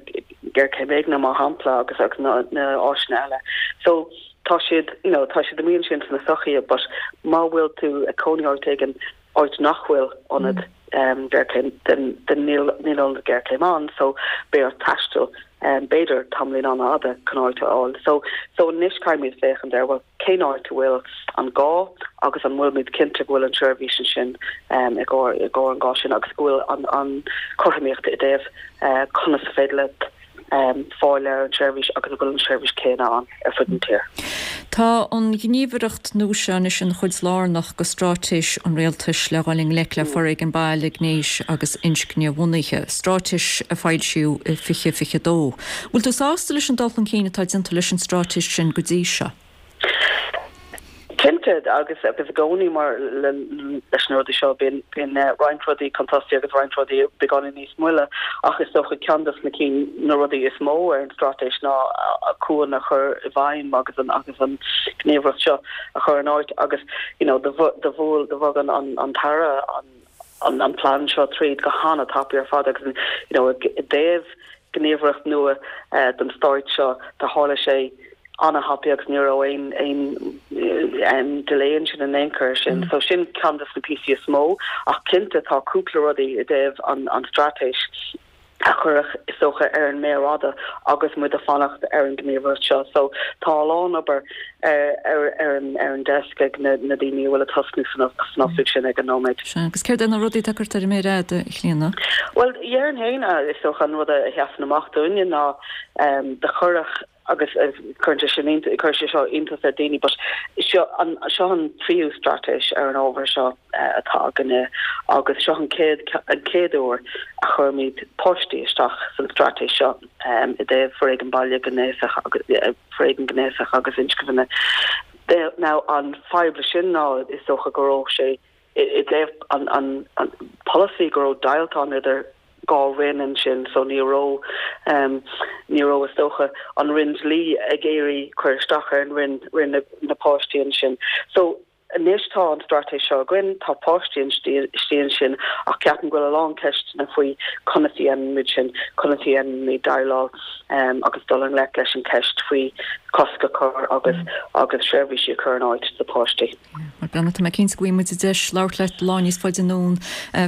géarchéim éigne mar shampla agus agus na na áiseanna eile. So tá siad you know tá siad amuigh ansin sna sochaí but má bhfuil tú ag cónaí áit éigin áit nach bhfuil ionad géarchéim then then níl níl ionad géarchéim ann so beidh ort taisteal b'fhéidir tamaillín an-fhada chun áit a fháil. So so anois caithfimid féachaint ar bhuel cén áit a bhfuil an gá agus an bhfuilimid cinnte go bhfuil an tseirbhís ansin i gcomhair i gcomhair an gá sin agus go bhfuil an an chothromaíocht i dtaobh conas is féidir leat fáil ar an tseirbhís agus an bhfuil an tseirbhís céanna ann ar fud an tír. Tá an ghníomhaireacht nua seo anois ina chuid lárnach de straitéis an Rialtais le dhul i ngleic le foréigean baile, gnéis agus inscne-bhunaithe, straitéis a foilsíodh i 2022. Bhfuil tú sásta leis an dul chun cinn atá déanta leis an straitéis sin go dtí seo? Cinnte, agus agus i gcónaí mar leis na rudaí seo bíonn bíonn roinnt rudaí chun tosaigh agus roinnt rudaí beagáinín níos moille ach is dócha ceann de na cinn na rudaí is mó ar an straitéis ná Cuan a chur i bhfeidhm agus an agus an ghníomhaireacht seo a chur in áit agus you know do do bhuail do bhog an an an tAire an an an plean seo tríd go hana-tapaidh ar fad agus you know i dtaobh gníomhaireacht nua don stáit seo do tharla sé ana-thapaidh agus ní raibh aon aon delay ansin in aon chor sin. So sin ceann de na píosaí is mó ach cinnte tá cúpla rudaí i dtaobh an an straitéis a cuireadh is dócha ar an méar fhada agus muid ag fanacht ar an gníomhaireacht seo. So tá a lán obair ar ar ar an ar an desk ag na na daoine a bhfuil ag tosnú san san oifig sin ag an nóiméad. Sea, agus céard é na rudaí atá curtha ar an méar fhada, a Chlíona? Bhuel, déarfainn féin, is dócha an rud a sheasann amach dúinne ná do cuireadh. Agus cuireann sé sin, cuireann sé seo iontas ar daoine but seo an, seo an tríú straitéis ar an ábhar seo atá againne agus seo an chéad, an chéad uair a chuirimid páistí isteach san straitéis seo i dtaobh foréigean baile gnéasach agus, foréigean gnéasach agus inscne. Now an fadhb leis sin ná is dócha go raibh sé i dtaobh an polasaí go raibh deighilt ann idir 2 roinn ansin so ní raibh ní raibh is dócha an roinn dlí ag iarraidh cur isteach ar an roinn roinn na páistí ansin. So anois tá an straitéis seo againn, tá páistí istigh ansin ach ceapaim go bhfuil a lán ceisteanna faoi conas a dhéanaimid sin, conas a dhéanaimid déileáil agus dul i ngleic leis an cheist faoi cosc a chur agus agus seirbhísí a chur in áit do pháistí. Bhuel, Breandán, tá mé cinnte go bhfaighidh muid deis labhairt leat lá níos faide anonn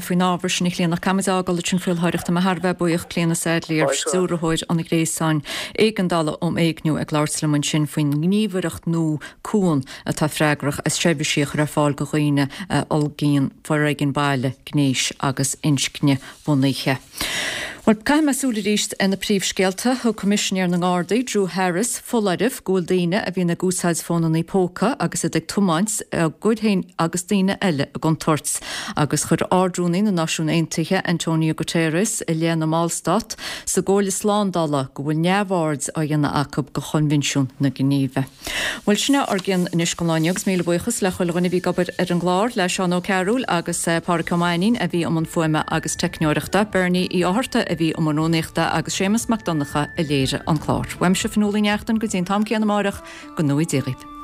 faoin ábhar sin, a Chlíona. Ach caithfimid a fhágáil ansin faoi láthair ach tá mé thar a bheith buíoch, Clíona Saidléar, Stiúrthóir an Ghréasáin Éigeandála um Éigniú, ag labhairt liom ansin faoin ngníomhaireacht nua Cuan atá freagrach as seirbhísí a chur ar fáil do dhaoine a fhulaingíonn foréigean baile, gnéis agus inscne-bhunaithe. Bhuel, caithfidh mé súil arís ar na príomhscéalta. Thug Coimisinéir na nGardaí, Drew Harris, foláireamh go bhfuil daoine a bhíonn ag úsáid fónanna póca agus iad ag tiomáint á gcur féin agus daoine eile i gcontúirt. Agus chuir Ard-Rúnaí na Náisiún Aontaithe, Antonio Guterres, i leith na mballstát sa gComhairle Slándála go bhfuil neamhaird á dhéanamh acu de Choinbhinsiún na Ginéive. Bhuel, sin é ár gcion anois don lá inniu agus míle buíochas le chuile dhuine a bhí ag obair ar an gclár, le Seán Ó Cearúil agus Pádhraic Ó Mainnín a bhí i mbun fuaime agus teicneoireachta, Bernie Uí Fhátharta a bhí i mbun rúnaíochta agus Séamus Mac Donncha a léirigh an clár. Uaimse Fionnuala Ní Neachtain go dtí an t-am céanna amáireach, go ngnóthaí Dia dhaoibh.